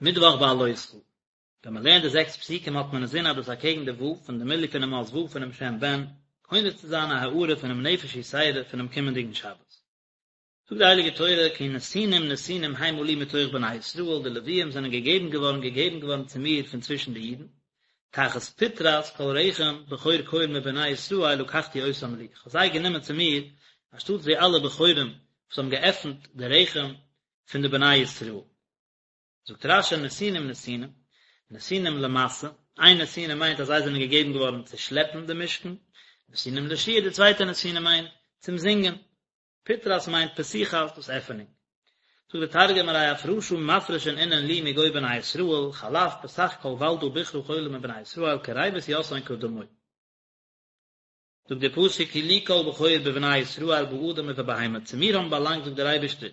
מיטוואך בהעלותך. ווען מען לערנט די זעקס פסוקים האט מען אינזין אז דאס אקעגן די ו' פון די מילוי פונעם אות ו' פונעם שם בן, קונה צו זיין א הארה פונעם נפש יתירה פונעם קומענדיגן שבת. זאגט די הייליגע תורה כי נתינים נתינים המה לי מתוך בני ישראל, די לוויים זענען געגעבן געווארן געגעבן געווארן צו מיר פון צווישן די אידן, תחת פטרת כל רחם בכור כל מבני ישראל לקחתי אותם לי, איך האב זיי גענומען צו מיר אנשטאטס די אלע בכורים וואס האבן געעפנט די רחם פון די בני ישראל. זאגט רש"י נתינים נתינים, נתינים למשא, איין נתינה מיינט אז זיי זענען געגעבן געווארן צו שלעפן די משכן, נתינים לשיר, די צווייטע נתינה מיינט צום זינגען, פטרת מיינט פתיחת, דאס עפענונג. זאגט דער תרגום ארי אפרשא מפרשין אינון לי מגו בני ישראל, חלף פתח כל ולדא בכרא כלא מבני ישראל קריבת יתהון קדמוי. זאגט דער פסוק כי לי כל בכור בבני ישראל באדם ובבהמה, צו מיר האבן באלאנגט זאגט דער אייבערשטער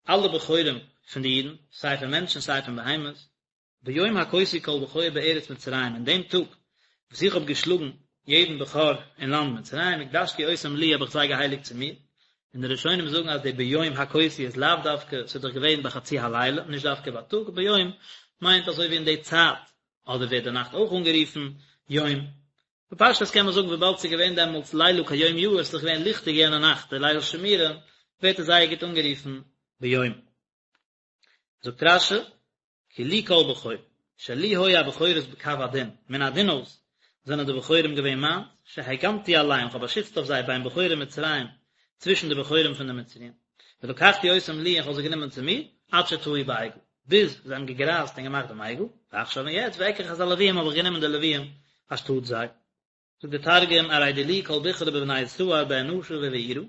אלע בכורים פון די אידן, סיי פון מענטשן סיי פון בהמות, ביום הכותי כל בכור בארץ מצרים, אין דעם טאג וואס איך האב געשלאגן יעדן בכור אין לאנד מצרים, הקדשתי אותם לי האב איך זיי געהייליגט צו מיר, און די ראשונים זאגן אז די ביום הכותי איז לאו דווקא, ס'איז דאך געווען בחצי הלילה, נישט דווקא בייטאג, ביום מיינט אזוי ווי אין די צייט, אדער ווערט די נאכט אויך אנגערופן יום, בפשטות קען מען זאגן וויבאלד ס'איז געווען דעמאלטס לילה כיום יאיר, ס'איז דאך געווען ליכטיג יענע נאכט די ליל שימורים, ווערט עס זייער גוט אנגערופן ביום. זאגט רש"י, כי לי כל בכור, שלי היו הבכורות בקו הדין, מן הדין אויס זענען די בכורים געווען מיינס, שהגנתי עליהם, כ'האב באשיצט אויף זיי בין בכורי מצרים, צווישן די בכורים פון די מצריים, ולקחתי אותם לי און כ'האב זיי גענומען צו מיר, עד שטעו בעגל, ביז זיי האבן געגרייזט און געמאכט דעם עגל, ועכשיו און יעצט, ואקח את הלוויים האב איך גענומען די לוויים אנשטאט זיי. זאגט דער תרגום, ארי דילי כל בכרא בבני ישראל באנשא ובעירא,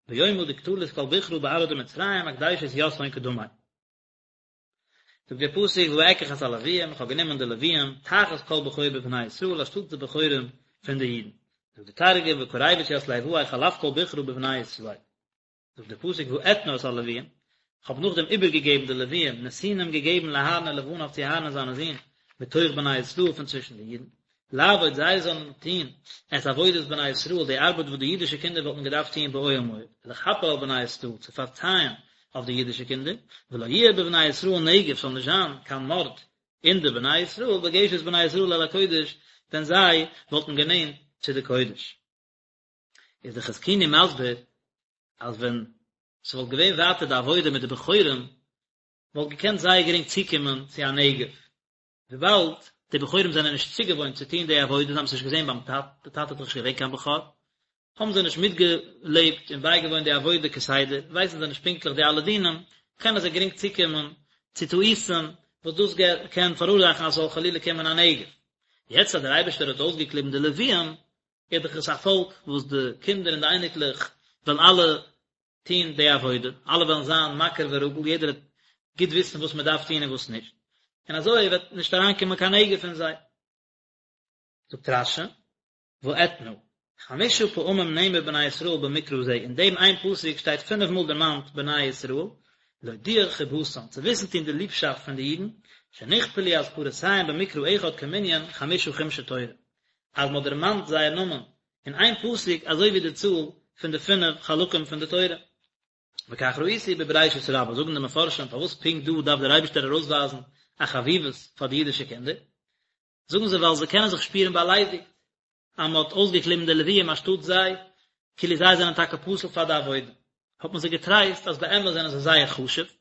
ביומא דקטלית כל בכרא בארעא דמצרים אקדישית יתהון קדמי. זאגט דער פסוק ואקח את הלוויים, איך האב גענומען די לוויים, תחת כל בכור בבני ישראל, אנשטאט די בכורים פון די אידן. זאגט דער תרגום, וקריבת ית ליואי חלף כל בכרא בבני ישראל. זאגט דער פסוק ואתנה את הלוויים, איך האב נאכדעם איבערגעגעבן די לוויים, נתינים געגעבן לאהרן ולבניו צו אהרן און זיינע זין, מתוך בני ישראל פון צווישן די אידן, לעבוד זיי זאלן טון את עבודת בני ישראל, די ארבעט וואס די אידישע קינדער וואלטן געדארפט טון באוהל מועד, לכפר על בני ישראל, צו פארצייען אויף די אידישע קינדער, ולא יהיה בבני ישראל נגף, ס'זאל נישט זיין קיין מארד אין די בני ישראל, בגשת בני ישראל אל הקודש, ווען זיי וואלטן גענענט צו די קודש. איז די חזקוני מסביר אז ווען ס'וואלט געווען ווייטער די עבודה מיט די בכורים וואלט געקענט זייער גרינג צוקומען צו א נגף, וויבאלד די בכורים זענען נישט צוגעוואוינט צו טון די עבודה, זיי האבן עס נישט געזען ביים טאטן, די טאטע איז דאך נישט געווען קיין בכור, האבן זיי נישט מיטגעלעבט און בייגעוואוינט די עבודה כסדר, ווייסן זיי נישט פונקטליך די אלע דינים, קענען זיי גרינג צוקומען צו טעותים וואס דאס קען פאראורזאכן אז ס'זאל חלילה קומען א נגף. יעצט אז דער אייבערשטער האט אויסגעקליבן די לוויים, איז דאך עס א פאלק וואס די קינדער און די אייניקלעך וועלן אלע טון די עבודה, אלע וועלן זיין מכיר ורגיל, יעדער וועט גוט וויסן וואס מען דארף טון און וואס נישט, און אזוי וועט נישט אריינקומען קיין נגף אין זיי. זאגט רש"י, ואתנה, חמשה פעמים נאמר בני ישראל במקרא זה, אין דעם איין פסוק שטייט פינף מאל דערמאנט בני ישראל, להודיע חיבתם, צו וויסן טון די ליבשאפט פון די אידן, שנכפלו אזכרותיהם במקרא אחד כמנין חמשה חומשי תורה, אז מען האט דערמאנט זייער נאמען אין איין פסוק אזוי ווי די צאל פון די פינף חלקים פון די תורה. וכך ראיתי בבראשית רבה, זאגן די מפרשים פארוואס פונקט דא דארף דער אייבערשטער ארויסווייזן א חביבות פאר די אידישע קינדער, זאגן זיי ווייל זיי קענען זיך שפירן באליידיגט אז מען האט אויסגעקליבן די לוויים אנשטאט זיי, כאילו זיי זענען טאקע פסול פאר די עבודה, האט מען זיי געטרייסט אז באמת זענען זיי זייער חשוב, זיי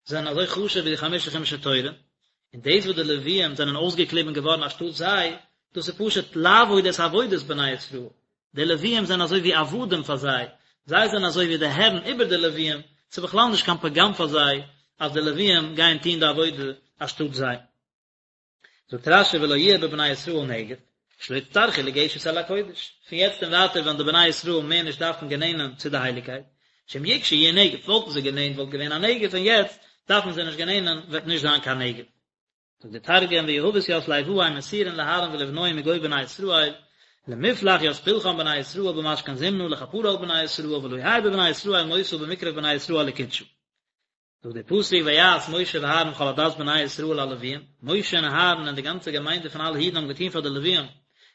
זענען אזוי חשוב ווי די חמשה חומשי תורה, און דאס וואס די לוויים זענען אויסגעקליבן געווארן אנשטאט זיי, דאס איז פשוט לעבוד את עבודת בני ישראל, די לוויים זענען אזוי ווי עבדים פאר זיי, זיי זענען אזוי ווי די הערן איבער די לוויים, ס'איז בכלל נישט קיין פגם פאר זיי אז די לוויים גייען טון די עבודה אנשטאט זיי. זאגט רש"י ולא יהיה בבני ישראל נגף, שלא יצטרכו לגשת אל הקודש, פון יעצט און ווייטער וועלן די בני ישראל מער נישט דארפן גענענען צו די הייליגקייט, שאם יגשו יהיה נגף, וואלטן זיי גענענט וואלט געווען א נגף און יעצט דארפן זיי נישט גענענען וועט נישט זיין קיין נגף. זאגט דער תרגום ויהבת ית ליואי מסורין לאהרן ולבנוהי מגו בני ישראל, למפלח ית פלחן בני ישראל במשכן זמנא לכפרה על בני ישראל ולא יהי בבני ישראל מותא במקרב בני ישראל לקודשא. זאגט דער פסוק ויעש משה ואהרן וכל עדת בני ישראל ללוויים, משה און אהרן און די גאנצע געמיינדע פון אלע אידן האבן געטון פאר די לוויים,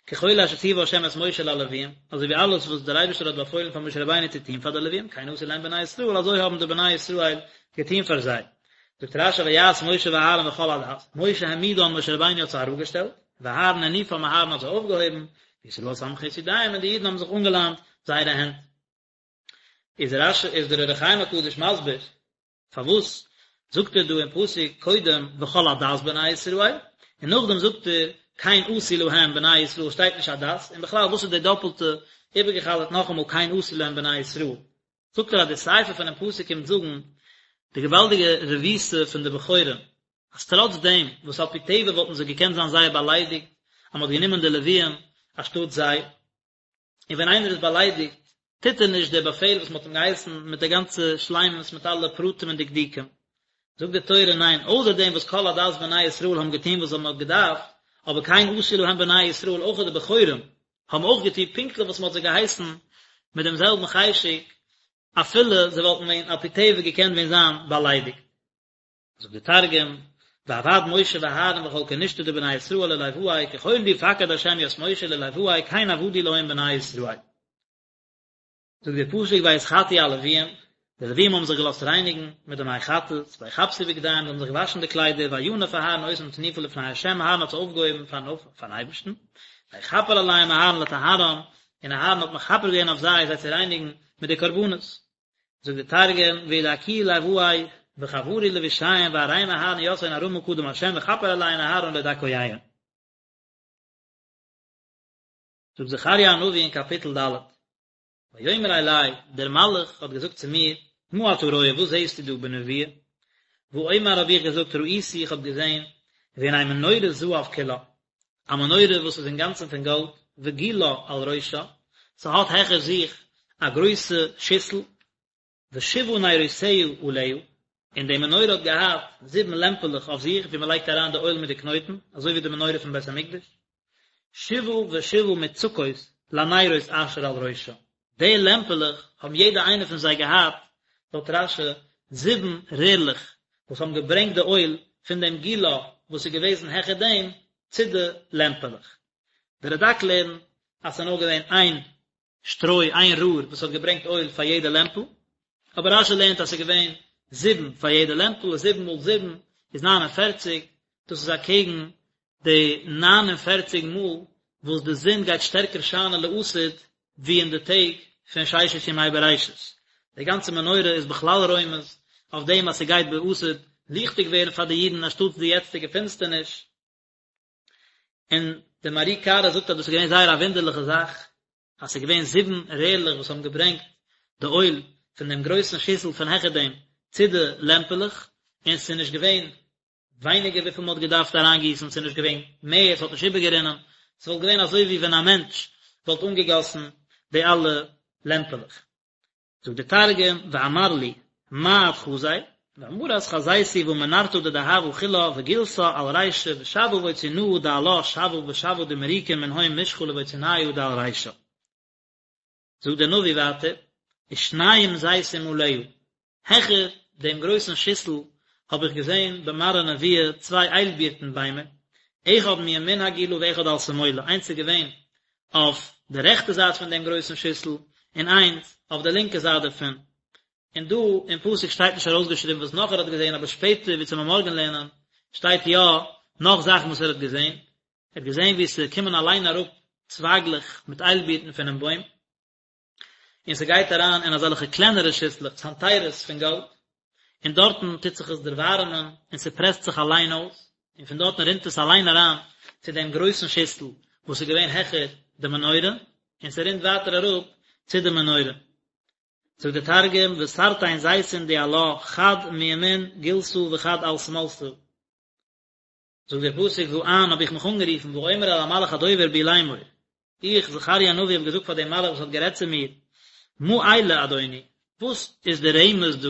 ככל אשר ציווה ה' את משה ללוויים, אזוי ווי אלעס וואס דער אייבערשטער האט באפוילן פאר משה רבינו צו טון פאר די לוויים, כן עשו להם בני ישראל, אזוי האבן די בני ישראל געטון פאר זיי. זאגט רשי ויעש משה ואהרן וכל עדת, משה העמידן משה רבינו האט זיי אראפגעשטעלט, ואהרן הניפם אהרן האט זיי אויפגעהויבן, וישראל סומכין את ידיהם און די אידן האבן זיך אנגעלאנט זייערע הענט. איז רשי איז דער אור החיים הקדוש מסביר פארוואס זאגט ער דא אין פסוק קודם וכל עדת בני ישראל און נאכדעם זאגט ער כן עשו להם בני ישראל שטייט נישט עדת און בכלל וואס איז די דאפלטע איבערגעחזרט נאכאמאל כן עשו להם בני ישראל זאגט ער אז די סיפא פונעם פסוק קומט זאגן די געוואלדיגע רבותא פון די בכורים, אז טראץ דעם וואס על פי טבע וואלטן זיי געקענט זיין זייער באליידיגט אז מען האט גענומען די לוויים אנשטאט זיי, און ווען איינער איז באליידיגט טוט ער נישט די באפעל וואס מען האט אים געהייסן מיט די גאנצע שלימות מיט אלע פרטים און דקדוקים. זאגט די תורה ניין, אויסער דעם וואס כל עדת בני ישראל האבן געטון וואס מען האט געדארפט, אבער כן עשו להם בני ישראל אויך די בכורים האבן אויך געטון פונקטליך וואס מען האט זיי געהייסן מיט דעם זעלבן חשק, אפילו זיי וואלטן ווען על פי טבע געקענט ווען זיין באליידיגט. זאגט די תרגום, ועבד משה ואהרן וכל כנשתא דבני ישראל לליואי ככל די פקד ה' ית משה לליואי כן עבדו להם בני ישראל. זאגט דער פסוק ויתחטאו הלוויים, די לוויים האבן זיך געלאזט רייניגן מיט די מי חטאת, ויכבסו בגדיהם, זיי האבן זיך געוואשן די קליידער, וינף אהרן אותם תנופה לפני ה', אהרן האט זיי אויפגעהויבן פארן אייבערשטן, ויכפר עליהם אהרן לטהרם, און אהרן האט מכפר געווען אויף זיי זיי צו רייניגן מיט די קרבנות. זאגט דער תרגום, וידכו ליואי וחברו לבישיהון וארים אהרן יתהון ארמא קדם ה' וכפר עליהון אהרן לדכויהון. זאגט זכריה הנביא אין קאפיטל ד', ויאמר אלי, דער מלאך האט געזאגט צו מיר, מה אתה רואה, וואס זעסטו דא בנבואה? ואומר האב איך געזאגט, ראיתי, איך האב געזען, והנה מנורת זהב כולה, א מנורה וואס איז אינגאנצן פון גאלד, וגולה על ראשה, ס'האט העכער זיך א גרויסע שיסל, ושבעה נרותיה עליה, און די מנורה האט געהאט זיבן לעמפעלעך אויף זיך ווי מען לייגט אריין די אויל מיט די קנויטן, אזוי ווי די מנורה פון בית המקדש, שבעה ושבעה מוצקות לנרות אשר על ראשה, די לעמפעלעך האבן יעדע איינע פון זיי געהאט, לויט רשי, זיבן רערלעך וואס האבן געברענגט די אויל פון דעם גולה וואס איז געוועזן העכער דעם צו די לעמפעלעך. די רדק לערנט אז ס'איז נאר געווען איין שטרוי, איין רער וואס האט געברענגט אויל פאר יעדע לעמפל, אבער רשי לערנט אז ס'איז געווען זיבן פאר יעדע לעמפל, זיבן מאל זיבן איז ניין און פערציג, דאס איז אקעגן די ניין און פערציג מאל וואס די זון גייט שטערקער שיינען לעתיד ווי אין די טעג פון ששת ימי בראשית. די גאנצע מנורה איז בכלל רומז אויף דעם אז ס'גייט בעתיד ליכטיג ווערן פאר די אידן אנשטאטס די יעצטיגע פינסטערניש. און דער מהר"י קרא זאגט אז דאס איז געווען זייער א וואונדערליכע זאך, אז ס'איז געווען זיבן רערלעך וואס האבן געברענגט די אויל פון דעם גרויסן שיסל פון העכער דעם צו די לעמפעלעך, און ס'איז נישט געווען ווייניגער וויפיל מ'האט געדארפט אריינגיסן, ס'איז נישט געווען מער, ס'האט נישט איבערגערינען, ס'וואלט געווען אזוי ווי ווען א מענטש וואלט אנגעגאסן די אלע לעמפעלעך. זאגט דער תרגום, ואמר לי, מה את חזי? ואמרת חזיתי והא מנרתא דדהבא כולה וגולתא על רישה ושבעה בוצינהא דעלה שבעא ושבעא דמריקין מנהון משחא לבוציניא דעל רישה. זאגט דער נביא ווייטער, ושנים זיתים עליה, העכער דעם גרויסן שיסל האב איך געזען במראה נבואה צוויי איילבירטן ביימער, אחד מימין הגולה ואחד על שמאלה, איינס איז געווען אויף די רעכטע זייט פון דעם גרויסן שיסל, און איינס אויף די לינקע זייט דערפון. און דא אין פסוק שטייט נישט ארויסגעשריבן וואס נאך ער האט געזען, אבער שפעטער ווי צו מארגן לערנען שטייט יא נאך זאכן וואס ער האט געזען. ער האט געזען ווי ס'קומען אליין אראפ צווייגלעך מיט איילבירטן פונעם בוים. און ס'גייט אריין אין אזעלכע קלענערע שיסלעך, צנתרות פון גאלד, און דארטן טוט זיך עס דערווארעמען, און ס'פרעסט זיך אליין אויס, און פון דארטן רינט עס אליין אריין צו דעם גרויסן שיסל וואס איז געווען העכער די מנורה, און ס'רינט ווייטער אראפ צו די מנורה. זאגט דער תרגום, ותרתין זיתין דעלה, חד מימין גולתא וחד על שמאלתא. זאגט דער פסוק ואען האב איך מיך אנגערופן ואומר אל המלאך הדובר בי לאמור, איך זכריה הנביא האב געזאגט פאר דעם מלאך וואס האט גערעדט צו מיר, מה אלה אדוני, וואס איז די רמז דא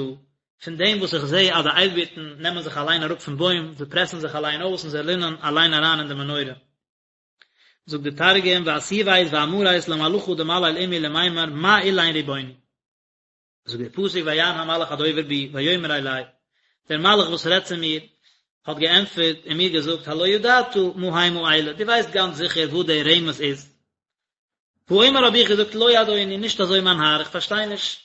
פון דעם וואס איך זע אז די איילבירטן נעמען זיך אליין אראפ פון בוים, זיי פרעסן זיך אליין אויס און זיי רינען אליין אריין אין די מנורה. זאגט דער תרגום ואתיבית ואמרית למלאכא דמליל עמי למימר מה אלין ריבוני. זאגט דער פסוק ויען המלאך הדובר בי ויאמר אלי, דער מלאך וואס רעדט צו מיר האט געענטפערט און מיר געזאגט הלא ידעת מה המה אלה, דו ווייסט גאנץ זיכער וואס דער רמז איז. ואומר האב איך געזאגט לא אדוני, נישט אזוי מיין האר, איך פארשטיי נישט.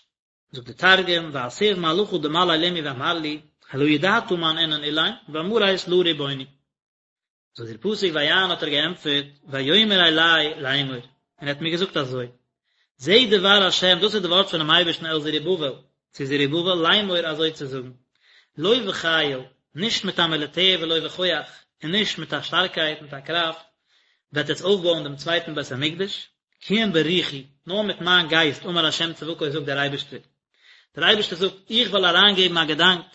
זאגט דער תרגום ואתיב מלאכא דמליל עמי ואמר לי, הלא ידעת מן אינון אלין, ואמרית לא רבוני. זאגט דער פסוק ויען האט ער געענטפערט, ויאמר אלי לאמור, און ער האט מיר געזאגט אזוי, זה דבר השם, דאס איז די ווארט פונעם אייבערשטן אל זרובבל, צו זרובבל, לאמור אזוי צו זאגן, לא בחיל, נישט מיט א מיליטער ולא בכח, און נישט מיט א שטארקייט, מיט א קראפט, וועט עטס אויפבויען דעם צווייטן בית המקדש, כי אם ברוחי, נאר מיט מיין גייסט, אמר השם צבקות זאגט דער אייבערשטער. דער אייבערשטער זאגט, איך וועל אריינגעבן א געדאנק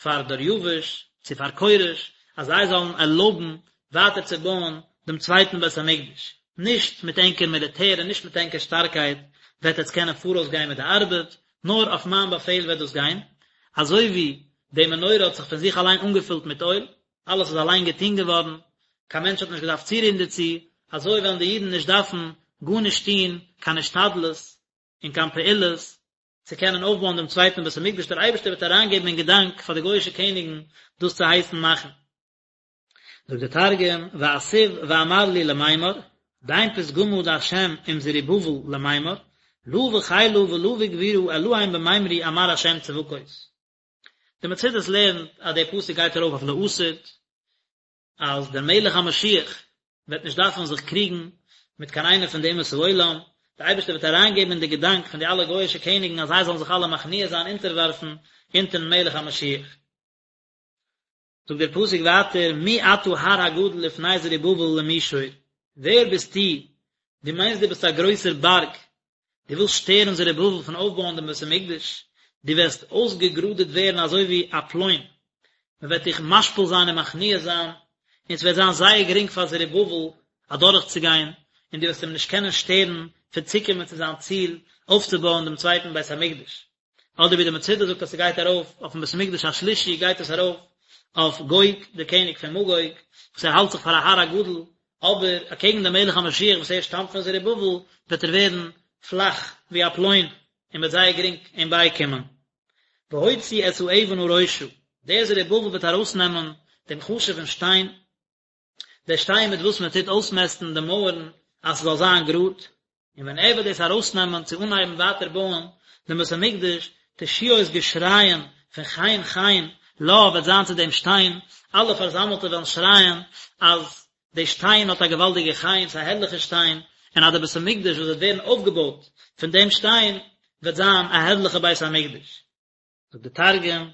פאר דריוש, צו פאר כורש, אז זיי זאלן ערלויבן ווייטער צו בויען דעם צווייטן בית המקדש. נישט מיט ענקער מיליטער און נישט מיט ענקער שטארקייט וועט עטס קענען פאראויס גיין מיט די ארבעט, נאר אויף מיין באפעל וועט דאס גיין. אזוי ווי די מנורה האט זיך פון זיך אליין אנגעפילט מיט אויל, אלעס איז אליין געטון געווארן, קיין מענטש האט נישט געדארפט צורירן דערצו, אזוי וועלן די אידן נישט דארפן גארנישט טון, קיין השתדלות און קיין פעולות, צו קענען אויפבויען דעם צווייטן בית המקדש, דער אייבערשטער וועט אריינגעבן אין געדאנק פאר די גוי'אישע קעניגן דאס צו הייסן מאכן. זאגט דער תרגום, ואתיב ואמר לי למימר, דין פתגמא דהשם עם זרובבל למימר, לא בחילא ולא בגבורא אלהין במימרי אמר השם צבקות. די מצודות לערנט אז דער פסוק גייט ארויף אויף לעתיד, אז דער מלך המשיח וועט נישט דארפן זיך קריגן מיט קיין איינער פון די אומות העולם, דער אייבערשטער וועט אריינגעבן אין די געדאנק פון די אלע גוי'אישע קעניגן אז זיי זאלן זיך אלע מכניע זיין, אונטערווארפן אונטערן מלך המשיח. זאגט דער פסוק ווייטער, מי אתה הר הגדול לפני זרובבל למישור, ווער ביסטו, דו מיינסט דו ביסט א גרויסער בארג, דו ווילסט שטערן זרובבל פון אויפבויען דעם בית המקדש, דו וועסט אויסגעגראדעט ווערן אזוי ווי א פלוין, מען וועט דיך משפיל זיין און מכניע זיין, און עס וועט זיין זייער גרינג פאר זרובבל אדורכצוגיין, און דו וועסט אים נישט קענען שטערן פון צוקומען צו זיין ציל, אויפצובויען דעם צווייטן בית המקדש. אדער ווי די מצודה זאגט אז ס'גייט ארויף אויפן בית המקדש השלישי גייט עס ארויף אויף גוג דער קעניג פון מגוג וואס ער האלט זיך פאר א הר הגדול אבער אקעגן דעם מלך המשיח וואס ער שטאמט פון זרובבל וועט ער ווערן פלאך ווי א פלוין און מ'וועט זייער גרינג אים בייקומען. והוציא את האבן הראשה, דער זרובבל וועט ארויסנעמען דעם חשוב'ן שטיין, דער שטיין מיט וואס מען טוט אויסמעסטן די מויערן אז ס'זאל זיין גראד, און ווען ער וועט דאס ארויסנעמען צו אנהייבן ווייטער בויען דעם בית המקדש, תשואות געשרייען פון חן חן לה וועט זיין צו דעם שטיין, אלע פארזאמלטע וועלן שרייען אז די שטיין האט א געוואלדיגע חן, ס'איז א הערליכע שטיין, און אז דער בית המקדש וואס וועט ווערן אויפגעבויט פון דעם שטיין וועט זיין א הערליכע בית המקדש. זאגט דער תרגום,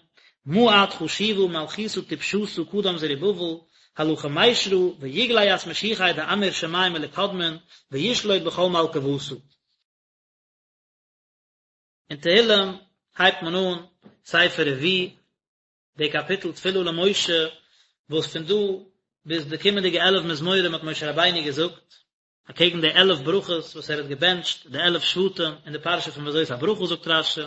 מה את חשיבא מלכותא טפשתא קדם זרובבל, הלא כמישרא ויגלי ית משיחיה דאמיר שמי מלקדמין וישלוט בכל מלכא וותא. אין תהילים הייבט מען אן ספר רביעי, די קאפיטל תפילה למשה, וואס פון דא ביז די קומענדיגע 11 מזמורים האט משה רבינו געזאגט, אקעגן די 11 ברכות וואס ער האט געבענטשט די 11 שבטים אין די פרשה פון וזאת הברכה זאגט רש"י,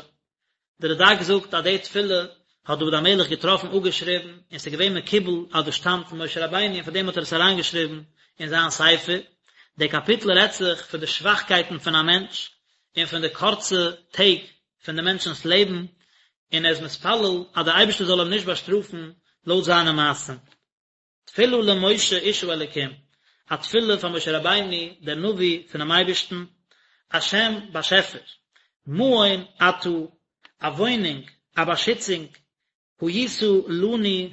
די רד"ק זאגט אז די תפילה האט דוד המלך געטראפן אפגעשריבן און ס'איז געווען מקובל אז דאס שטאמט פון משה רבינו און פאר דעם האט ער עס אריינגעשריבן אין זיין ספר. די קאפיטל רעדט זיך פון די שוואכקייטן פון א מענטש און פון די קורצע טעג פון די מענטשנ'ס לעבן, און ער איז מתפלל אז דער אייבערשטער זאל אים נישט באשטראפן לויט זיינע מעשים. תפילה למשה איש האלקים, א תפילה פאר משה רבינו דער נביא פונעם אייבערשטן, השם באשעפער, מעון אתה, א וואוינונג, א באשיצונג, היית לנו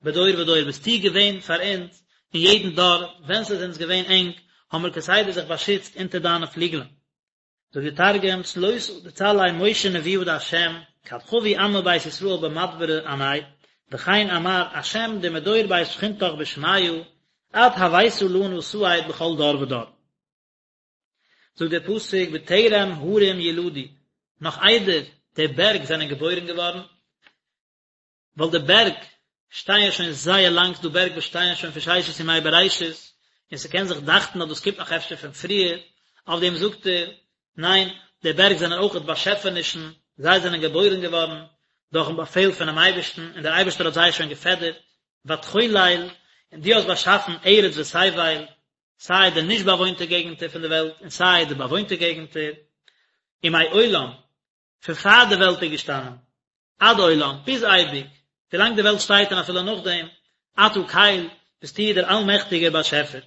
בדור ודור, ביסטו געווען פאר אונז אין יעדן דור, ווען ס'איז אונז געווען ענג, האבן מיר כסדר זיך באשיצט אונטער דיינע פליגלען. זאגט די תרגום, צלותא דצלי משה נבואה דהשם, כד חבו עמא בית ישראל במדברא עניה, וכן אמר השם דמדור בית שכינתך בשמיא, את הוית לנא סהד בכל דור ודור. זאגט דער פסוק בטרם הרים יולדו, נאך איידער די בערג זענען געבוירן געווארן, ווייל די בערג שטייען שוין זייער לאנג, ס'דא בערג וואס שטייען שוין פון ששת ימי בראשית, און ס'קען זיך דאכטן אז דאס קומט נאך אפשר פון פריער, אויף דעם זאגט ער, ניין, די בערג זענען אויכעט באשעפענישן, זיי זענען געבוירן געווארן דורכ'ן באפעל פונעם אייבערשטן, און דער אייבערשטער האט זיי שוין געפעדערט, ותחולל, און דו האסט באשאפן ארץ ותבל, סיי די נישט באוואוינטע געגנטער פון די וועלט און סיי די באוואוינטע געגנטער, ומעולם, פון פאר די וועלט איז געשטאנען, עד עולם, ביז אייביג, ווילאנג די וועלט שטייט און אפילו נאכדעם, אתה קל, ביסטו דער אלמעכטיגער באשעפער.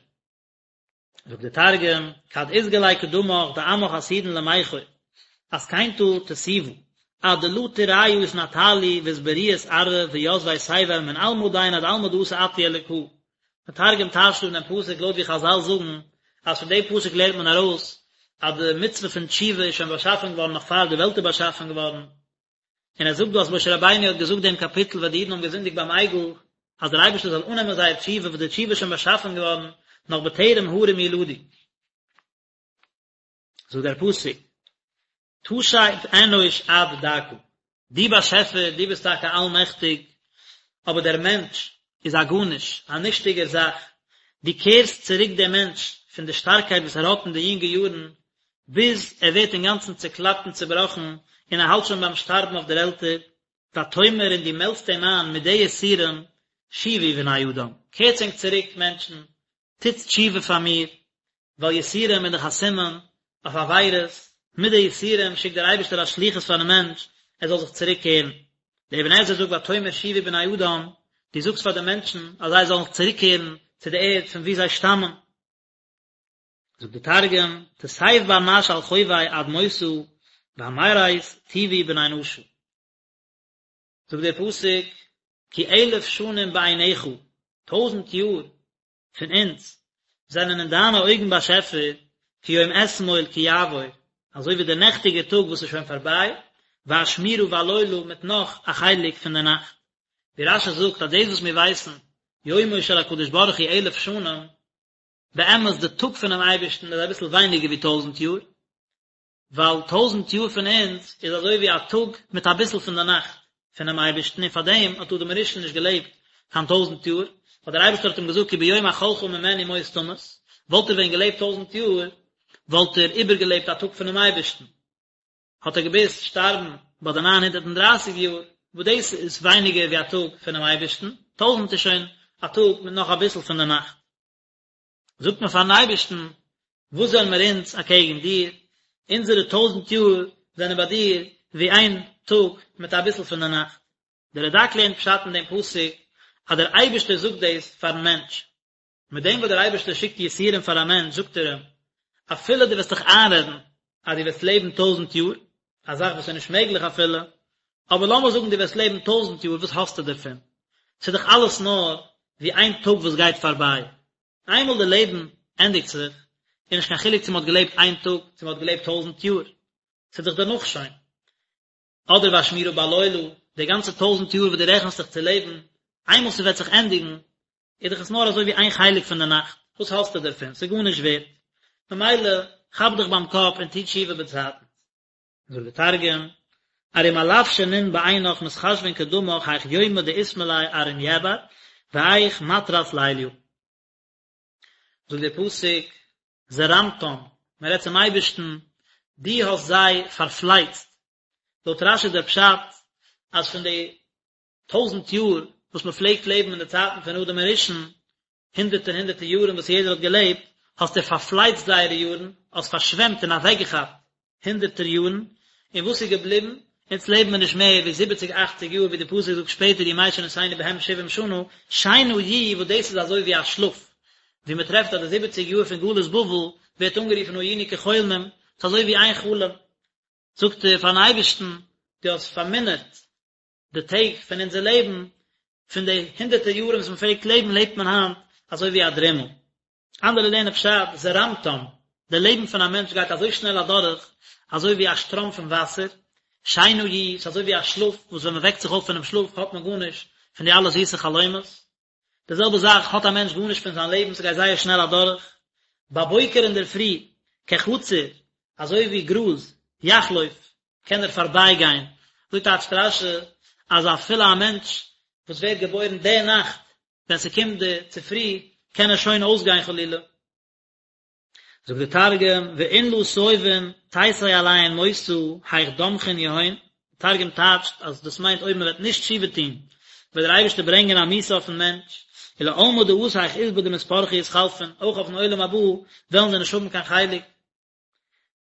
זאגט דער תרגום, כד אתגלי קדמך דעמך עתידין למיכור, אתקינתא תתיבא. עד דלא תרעיא אתנטלו ואתבריאת ארעא ויתבי תבל מן עלמא דין עד עלמא דאתי אתו אלקא. דער תרגום טייטשט אן דעם פסוק לויט ווי חזל זאגן אז פון דעם פסוק לערנט מען ארויס אז די מצוה פון תשובה איז שוין באשאפן געווארן נאך פאר די וועלט איז באשאפן געווארן, און ער זאגט דא אז משה רבינו האט געזאגט דעם קאפיטל ווען די אידן האבן געזינדיגט ביים עגל אז דער אייבערשטער זאל אננעמען זייער תשובה וואס די תשובה איז שוין באשאפן געווארן נאך בטרם הרים יולדו. זאגט דער פסוק, תשב אנוש עד דכא, דו באשעפער, דו ביסט טאקע אלמעכטיג, אבער דער מענטש איז א גארנישט, א נישטיגער זאך, דו קערסט צוריק דעם מענטש פון די שטארקייט וואס ער האט אין די יונגע יארן, ביז ער ווערט אינגאנצן צעקלאפט און צעבראכן, און ער האלט שוין ביים שטארבן אויף דער עלטער, ותאמר און דו מעלדסט אים איין מיט די יסורים, שובו בני אדם, קערטס ענק צוריק מענטשן, טוטס תשובה פאר מיר, ווייל יסורים איז דאך א סימן אויף עבירות, מיט די יסורים שיקט דער אייבערשטער א שליחות פארן מענטש ער זאל זיך צוריק קערן. דער אבן עזרא זאגט ותאמר שובו בני אדם, דו זאגסט פאר די מענטשן אז זיי זאלן זיך צוריק קערן צו די ערד פון וואו זיי שטאמען. זאגט דער תרגום, תסיב בר נש על חוביה עד מותא, ואמירת תובו בני נשא. זאגט דער פסוק, כי אלף שנים בעיניך, טויזנט יאר פון אונז זענען אין דיינע אויגן באשעפער כיום אתמול כי יעבור, אזוי ווי דער נעכטיגער טאג וואס איז שוין פארביי, ואשמורה בלילה מיט נאך א חלק פון דער נאכט. ווי רש"י זאגט אז דאס וואס מיר ווייסן יומו של הקדוש ברוך הוא אלף שנים, באמת די טאג פונעם אייבערשטן איז אביסל ווייניגער ווי טויזנט יאר, ווייל טויזנט יאר פון אונז איז אזוי ווי א טאג מיט אביסל פון די נאכט פונעם אייבערשטן און פארדעם האט אדם הראשון נישט געלעבט קיין טויזנט יאר, ווייל דער אייבערשטער האט אים געזאגט כי ביום אכלך ממנו מות תמות, וואלט ער ווען געלעבט טויזנט יאר וואלט ער איבערגעלעבט א טאג פונעם אייבערשטן, האט ער געמוזט שטארבן ביי די ניין הונדערט און דרייסיג יאר, וואס דאס איז ווייניגער ווי א טאג פונעם אייבערשטן, טויזנט איז שוין א טאג מיט נאך אביסל פון די נאכט. זאגט מען פארן אייבערשטן, וואס זענען מיר אונז אקעגן דיר, אונזערע טויזנט יאר זענען ביי דיר ווי איין טאג מיט אביסל פון די נאכט. דער רד"ק לערנט פשט אין דעם פסוק אז דער אייבערשטער זאגט דאס פארן מענטש. מיט דעם וואס דער אייבערשטער שיקט יסורים פאר א מענטש זאגט ער אים, אפילו דו וועסט דיך איינרעדן אז דו וועסט לעבן טויזנט יאר, א זאך וואס איז נישט מעגליך אפילו, אבער לאמיר זאגן דו וועסט לעבן טויזנט יאר, וואס האסטו דערפון? ס'איז דאך אלעס נאר ווי איין טאג וואס גייט פארביי. איינמאל די לעבן ענדיגט זיך, איז נישט קיין חילוק צו מ'האט געלעבט איין טאג, צו מ'האט געלעבט טויזנט יאר, ס'איז דאך דערנאך שוין. אדער ואשמורה בלילה, די גאנצע טויזנט יאר וואס דו רעכנסט זיך צו לעבן, איינמאל ס'וועט זיך ענדיגן, איז דאך עס נאר אזוי ווי איין חלק פון די נאכט, וואס האסטו דערפון? ס'איז גארנישט ווערט. ממילא, כאפ דיך ביים קאפ און טו תשובה באצייטנס. זאגט די תרגום, ארום אלף שנין בעינך מתחשבין קדמך היך יומא דאתמלי ארעא יעבר והיך מטרת ליליא. זאגט דער פסוק, זרמתם, מען רעדט צום אייבערשטן, דו האסט זיי פארפלייצט. לויט רש"י איז דער פשט אז פון די טויזנט יאר וואס מען פלעגט לעבן אין די צייטן פון אדם הראשון, הונדערטער הונדערטער יארן וואס יעדער האט געלעבט, האסטו פארפלייצט זייערע יארן, האסט פארשוועמט און אוועקגעכאפט הונדערטער יארן, און וואס איז געבליבן? אונז לעבן מיר נישט מער ווי זיבעציג אכציג יאר, ווי די פסוק זאגט שפעטער ימי שנותינו בהם שבעים שנה, שינה יהיו וואס דאס איז אזוי ווי א שלאף, ווי מען טרעפט אז די זיבעציג יאר פון גלות בבל ווערט אנגערופן היינו כחולמים, ס'איז אזוי ווי איין חלום. זאגט ער פארן אייבערשטן, דו האסט פארמינערט די טעג פון אונזער לעבן, פון די הונדערטער יארן וואס מען פלעגט לעבן לעבט מען היינט אזוי ווי א דרימל. אנדערע לערנען פשט, זרמתם, די לעבן פון א מענטש גייט אזוי שנעל אדורך, אזוי ווי א שטראם פון וואסער, שינה יהיו, ס'איז אזוי ווי א שלאף, וואס ווען מען וועקט זיך אויף פונעם שלאף האט מען גארנישט פון די אלע זיסע חלומות. די זעלבע זאך האט א מענטש גארנישט פון זיין לעבן, ס'גייט זייער שנעל אדורך. בבוקר אינדערפרי, כחציר, אזוי ווי גראז, יחלוף, קען ער פארבייגיין. אזוי טייטשט רש"י אז אפילו א מענטש וואס ווערט געבוירן די נאכט, ווען ס'קומט די צופרי, קען ער שוין אויסגיין חלילה. זאגט די תרגום, ואין לא תיבין תיתי עליהון מותא היך דמחין יהון, די תרגום טייטשט אז דאס מיינט אויב מען וועט נישט תשובה טון וועט דער אייבערשטער ברענגען א מיתה אויפן מענטש, ולעלמא דאתי היך עסבא דמתברכי אתחלפון, אויך אויפן עולם הבא וועלן זיי נישט האבן קיין חלק.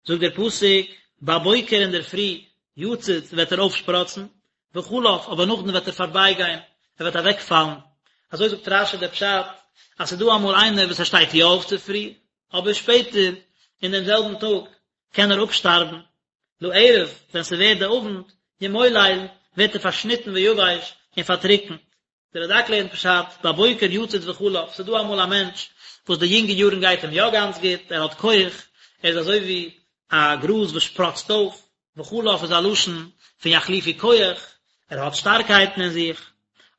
זאגט דער פסוק, בבוקר אינדערפרי, יציץ וועט ער אויפשפראצן, וחלף, אבער נאכדעם וועט ער פארבייגיין, ער וועט אוועקפאלן. אזוי זאגט רש"י דער פשט, אז ס'איז דא אמאל איינער וואס ער שטייט יא אויף צופרי, אבער שפעטער אין דעם זעלבן טאג קען ער אפשטארבן. לערב, ווען ס'ווערט די אוונט, ימולל, ווערט ער פארשניטן ויבש און פארטריקנט. דער רד"ק לערנט פשט, בבוקר יציץ וחלף, ס'איז דא אמאל א מענטש וואס די יונגע יארן גייט אים יא גאנץ גוט, ער האט כח, ער איז אזוי ווי א גראז וואס שפראצט אויף, וחלף איז א לשון פון יחליפו כח, ער האט שטארקייטן אין זיך,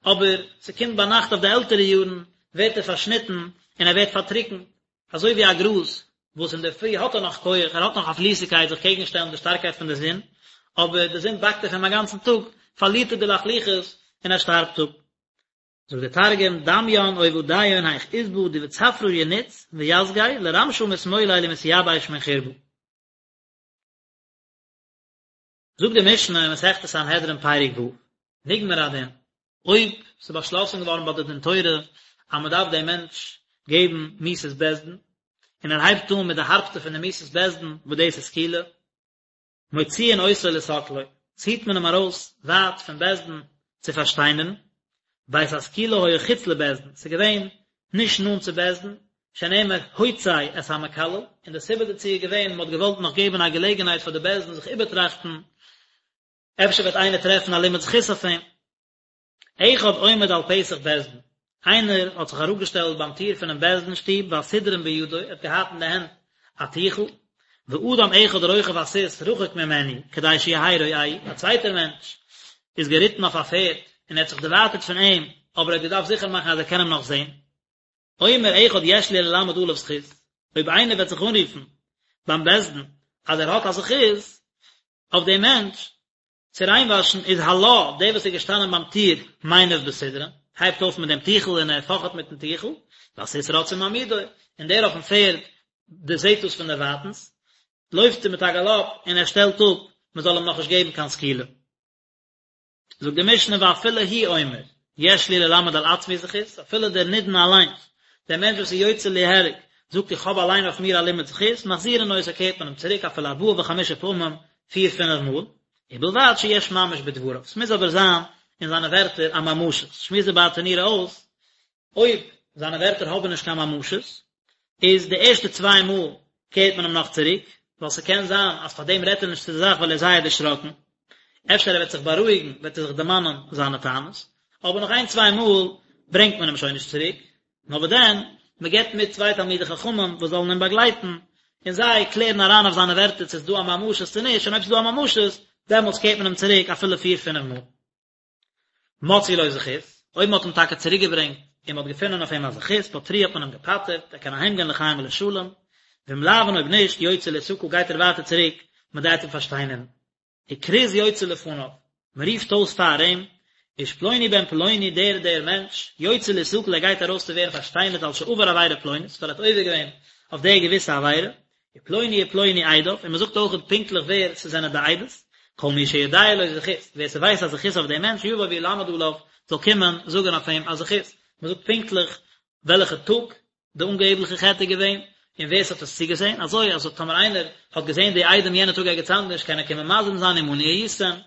אבער ס'קומט ביינאכט אויף די עלטערע יארן ווערט ער פארשניטן און ער ווערט פארטריקנט, אזוי ווי א גראז וואס אינדערפרי האט ער נאך כח, ער האט נאך א פליסיגקייט זיך קעגן שטעלן די שטארקייט פון די זון, אבער די זון באקט אויף אים א גאנצן טאג, פארלירט ער די לחלוחית און ער שטארבט אפ. זאגט דער תרגום, דמיין עובדיהון היך עסבא די בצפרא ינץ ויסגי לרמשא מתמולל ומתיבש מן חורבא. זאגט די משנה אין מסכת סנהדרין פרק ו', נגמר הדין, אויב ס'איז באשלאסן געווארן ביי די דין תורה אז מען דארף דעם מענטש געבן מיתת בית דין, און ער הייבט אן מיט די הארבסטע פון די מיתות בית דין וואס דאס איז סקילה, מוציאין אותו לסקלו, ציט מען אים ארויס ווייט פון בית דין צו פארשטיינערן, בית הסקילה היה חוץ לבית דין, ס'איז געווען נישט נאנט צו בית דין, שנאמר הוצא את המקלל, און די סיבה דערצו איז געווען מען האט געוואלט נאך געבן א געלעגנהייט פאר די בית דין זיך איבערטראכטן, אפשר וועט איינער טרעפן א לימוד זכות אויף אים. אחד עומד על פתח בית דין, איינער האט זיך אראפגעשטעלט ביים טיר פונעם בית דין שטוב והסודרין בידו, ער האט געהאט אין די הענט א טיכל, ואדם אחד רוכב על סוס רחוק ממנו כדי שיהא רואהו, א צווייטער מענטש איז געריטן אויף א פערד און ער האט זיך דערווייטערט פון אים, אבער ער האט געדארפט זיכער מאכן אז ער קען אים נאך זען. אומר אחד יש לי ללמד עליו זכות, אויב איינער וועט זיך אנרופן ביים בית דין אז ער האט א זכות אויף דעם מענטש צו ריינוואשן, איז הלה, דער וואס איז געשטאנען ביים טיר, מניף בסודרין, הייבט אויף מיט דעם טיכל און ער פאכעט מיטן טיכל, והסוס רץ ומעמידו, און דער אויפן פערד דערזעט דאס פון דערווייטנס, לויפט ער מיט א גאלאפ און ער שטעלט אפ מען זאל אים נאכנישט געבן קיין סקילה. זאגט די משנה ואפילו הוא אומר יש לי ללמד על עצמי זכות, אפילו דער נידון אליינס, דער מענטש וואס איז יוצא ליהרג, זאגט איך האב אליין אויף מיר א לימוד זכות, מחזירין אותו קערט מען אים צוריק אפילו ארבעה וחמישה פעמים, פיר פינף מאל, ובלבד שיש ממש בדבריו, ס'מוז אבער זיין אין זיינע ווערטער א ממשות, שמועסט די ברטנורא אויס, אויב זיינע ווערטער האבן נישט קיין ממשות, איז די ערשטע צוויי מאל קערט מען אים נאך צוריק, ווייל ס'קען זיין אז פאר דעם רעדט ער נישט צו די זאך ווייל ער איז זייער דערשראקן, אפשר ער וועט זיך בארואיגן וועט ער זיך דערמאנען זיינע טענות, אבער נאך איין צוויי מאל ברענגט מען אים שוין נישט צוריק, נאר וואס דען, מען געבט מיט צוויי תלמידי חכמים וואס זאלן אים באגלייטן, און זיי קלערן אריין אויף זיינע ווערטער צו ס'איז דא א ממשות צו נישט, און אויב ס'איז דא א ממשות, דעמאלטס קערט מען אים צוריק אפילו פיר פינף מאל. מצאו לו זכות, אויב מען האט אים טאקע צוריק געברענגט און מען האט געפונען אויף אים א זכות, פטרוהו האט מען אים געפטר'ט, ער קען אהיים גיין לחיים ולשלום, ואם לאו און אויב נישט, יוצא להסקל גייט ער ווייטער צוריק, מען גייט אים פארשטיינערן. וכרוז יוצא לפניו, מען רופט אויס פאר אים, איש פלוני בן פלוני דער דער מענטש, יוצא להסקל ער גייט ארויס צו ווערן פארשטיינערט על שעבר עבירה פלונית, ווייל ער האט עובר געווען אויף דער געוויסע עבירה, ופלוני ופלוני עדיו, און מען זאגט אויך פונקטליך ווער ס'זענען די עדות, כל מי שיודע לו זכות, ווער ס'ווייסט א זכות אויף דעם מענטש, יבוא וילמד עליו, זאל קומען זאגען אויף אים א זכות, מען זאגט פונקטליך וועלכע טאג די אנגעבליכע חטא איז געווען, און ווער ס'האט עס צוגעזען, אזוי אז טאמער איינער האט געזען די עדים יענע טאג ערגעץ אנדערש קען ער קומען מזים זיין עמנו הייתם,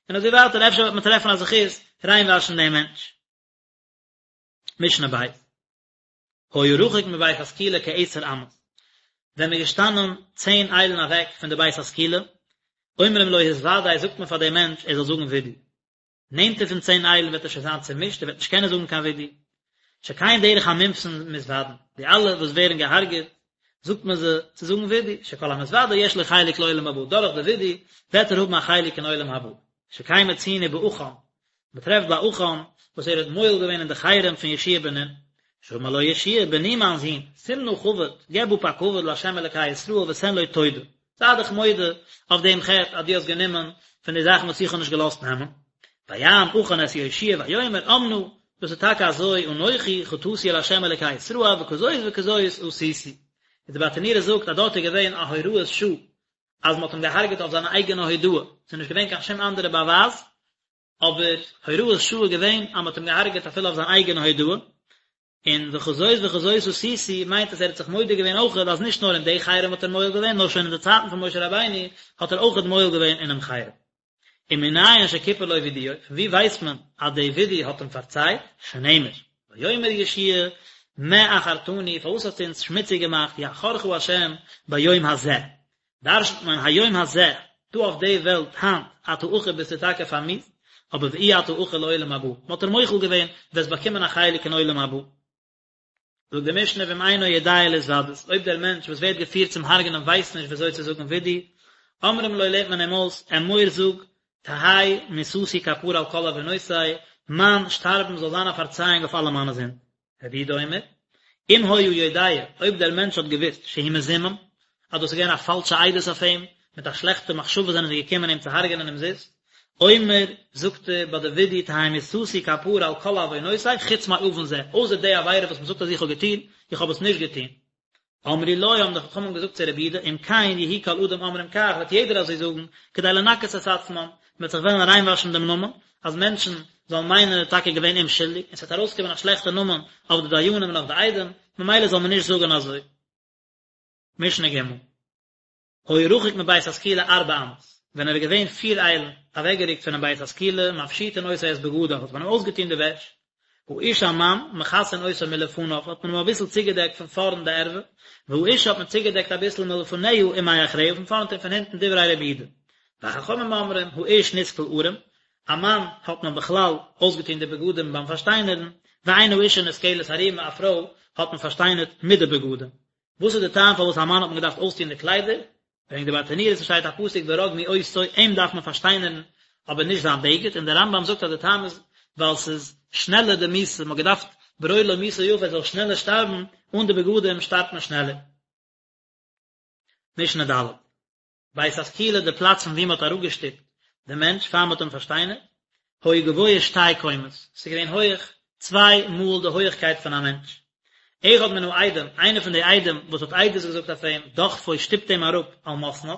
און אזוי ווייטער, אפשר וועט מען טרעפן א זכות ריינוואשן דעם מענטש. משנה ב'. היה רחוק מבית הסקילה כעשר אמות, ווען מ'איז געשטאנען צען איילן אוועק פון די בית הסקילה, אומרים לו התוודה זאגט מען פאר דעם מענטש ער זאל זאגן וידוי. נענטער פון צען איילן וועט ער שוין זיין צומישט ער וועט נישט קענען זאגן קיין וידוי. שכן דרך המומתין מתוודין, די אלע וואס ווערן געהארגעט זאגט מען זיי צו זאגן וידוי, שכל המתוודה יש לו חלק לעולם הבא, דורך די וידוי וועט ער האבן א חלק אין עולם הבא. שכן מצינו בעכן, מען טרעפט ביי עכן וואס ער האט מועל געווען אין די חרם פון יהושע בן נון, שאמר לו יהושע בני מיין זון, שים נא כבוד, געב אפ א כבוד לה' אלקי ישראל ותן לו תודה, זיי דיך מודה אויף דעם חטא אז דו האסט גענומען פון די זאכן וואס איך האב נישט געלאזט נעמען. ויען עכן את יהושע ויאמר אמנה, דאס איז טאקע אזוי, אנכי חטאתי אל ה' אלקי ישראל וכזאת וכזאת עשיתי. און די ברטנורא זאגט אז דארט איז געווען א הוראת שעה אז מען האט אים געהארגעט אויף זיינע אייגענע הודאה, ס'איז נישט געווען קיין שום אנדערע באווייז, אבער הוראת שעה איז געווען אז מען האט אים געהארגעט אפילו אויף זיין אייגענע הודאה, און וכזאת וכזאת עשיתי מיינט אז ער האט זיך מודה געווען אויכעט אז נישט נאר אין די חרם האט ער מועל געווען נאר שוין אין די צייטן פון משה רבינו האט ער אויכעט מועל געווען אינעם חרם. ומנין שכיפר לו וידויו, פון ווי ווייסט מען אז די וידוי האט אים פארצייט? שנאמר, ויאמר יהושע מה עכרתנו, פארוואס האסטו אונז שמוציג געמאכט, יעכרך השם ביום הזה. דרש'נט מען היום הזה. דא אויף די וועלט היינט אתה עכור ביסטו טאקע פארמיאוסט, אבער ואי אתה עכור לעולם הבא, מען האט דיר מוחל געווען, וועסט באקומען א חלק אין עולם הבא. זאגט די משנה ואם אינו יודע להתוודות, אויב דער מענטש וואס ווערט געפירט צום הרג'נען ווייסט נישט ווי אזוי צו זאגן וידוי, אומרים לו לערנט מען אים אויס, אמור זאג, תהא מיתתי כפרה על כל עוונותי, מיין שטארבן זאל זיין א פארצייאונג אויף אלע מיינע זינד. רבי יהודה אומר, אם היה יודע, אויב דער מענטש האט געוואוסט שהוא מזומם, אז דאס איז געווען א פאלשע עדות אויף אים, מיט א שלעכטע מחשבה זענען זיי געקומען אים צו הרג'ענען אומזיסט, אומר, זאגט ער ביי די וידוי תהא מיתתי כפרה על כל עוונותי חוץ מעוון זה, אויסער די עבירה וואס מען זאגט אז איך האב געטון, איך האב עס נישט געטון. אמרו לו, האבן די חכמים געזאגט צו רבי יהודה, אם כן יהיו כל אדם אומרים כך, וועט יעדער אזוי זאגן, כדי לנקות את עצמם, מען וועט זיך וועלן ריינוואשן דעם נאמען, אז מענטשן זאלן מיינען ער איז טאקע געווען אומשולדיג, און ס'וועט ארויסקומען א שלעכטע נאמען אויף די דיינים און אויף די עדים, ממילא זאל מען נישט זאגן אזוי. משנה ג'. היה רחוק מבית הסקילה ארבע אמות, ווען ער איז געווען פיר איילן אוועקגערוקט פונעם בית הסקילה, מפשיטין אותו את בגדיו, האט מען אים אויסגעטון די וועש, האיש א מאן, מכסין אותו מלפניו, האט מען אים אביסל צוגעדעקט פון פארנט די ערווה, והאשה האט מען צוגעדעקט אביסל מלפניה ומאחריה, פון פארנט און פון הינטן דברי רבי יהודה. וחכמים אומרים, האיש נסקל ערום, א מאן האט מען בכלל אויסגעטון די בגדים ביים פארשטיינערן, ואין האשה נסקלת ערומה, א פרוי האט מען פארשטיינערט מיט די בגדים. וואס איז די טעם פארוואס א מאן האט מען געדארפט אויסטון די קליידער? ברענגט די ברטנורא ס'שטייט א פסוק ורגמו אותו אים דארף מען פארשטיינערן אבער נישט זיין בגד און דער רמב"ם זאגט אז די טעם איז ווייל ס'איז שנעלער די מיתה מ'האט געדארפט ברור לו מיתה יפה ער זאל שנעלער שטארבן אן די בגדים שטארבט מען שנעלער. משנה ד'. בית הסקילה די פלאץ פון ווי מען האט אראפגעשטופט די מענטש פאר מען האט אים פארשטיינערט, היה גבוה שתי קומות, ס'איז געווען הויעך צוויי מאל די הויעכקייט פון א מענטש. אחד מן העדים, איינער פון די עדים וואס האט עדות געזאגט אויף אים, דוחפו שטופט אים אראפ על מתניו,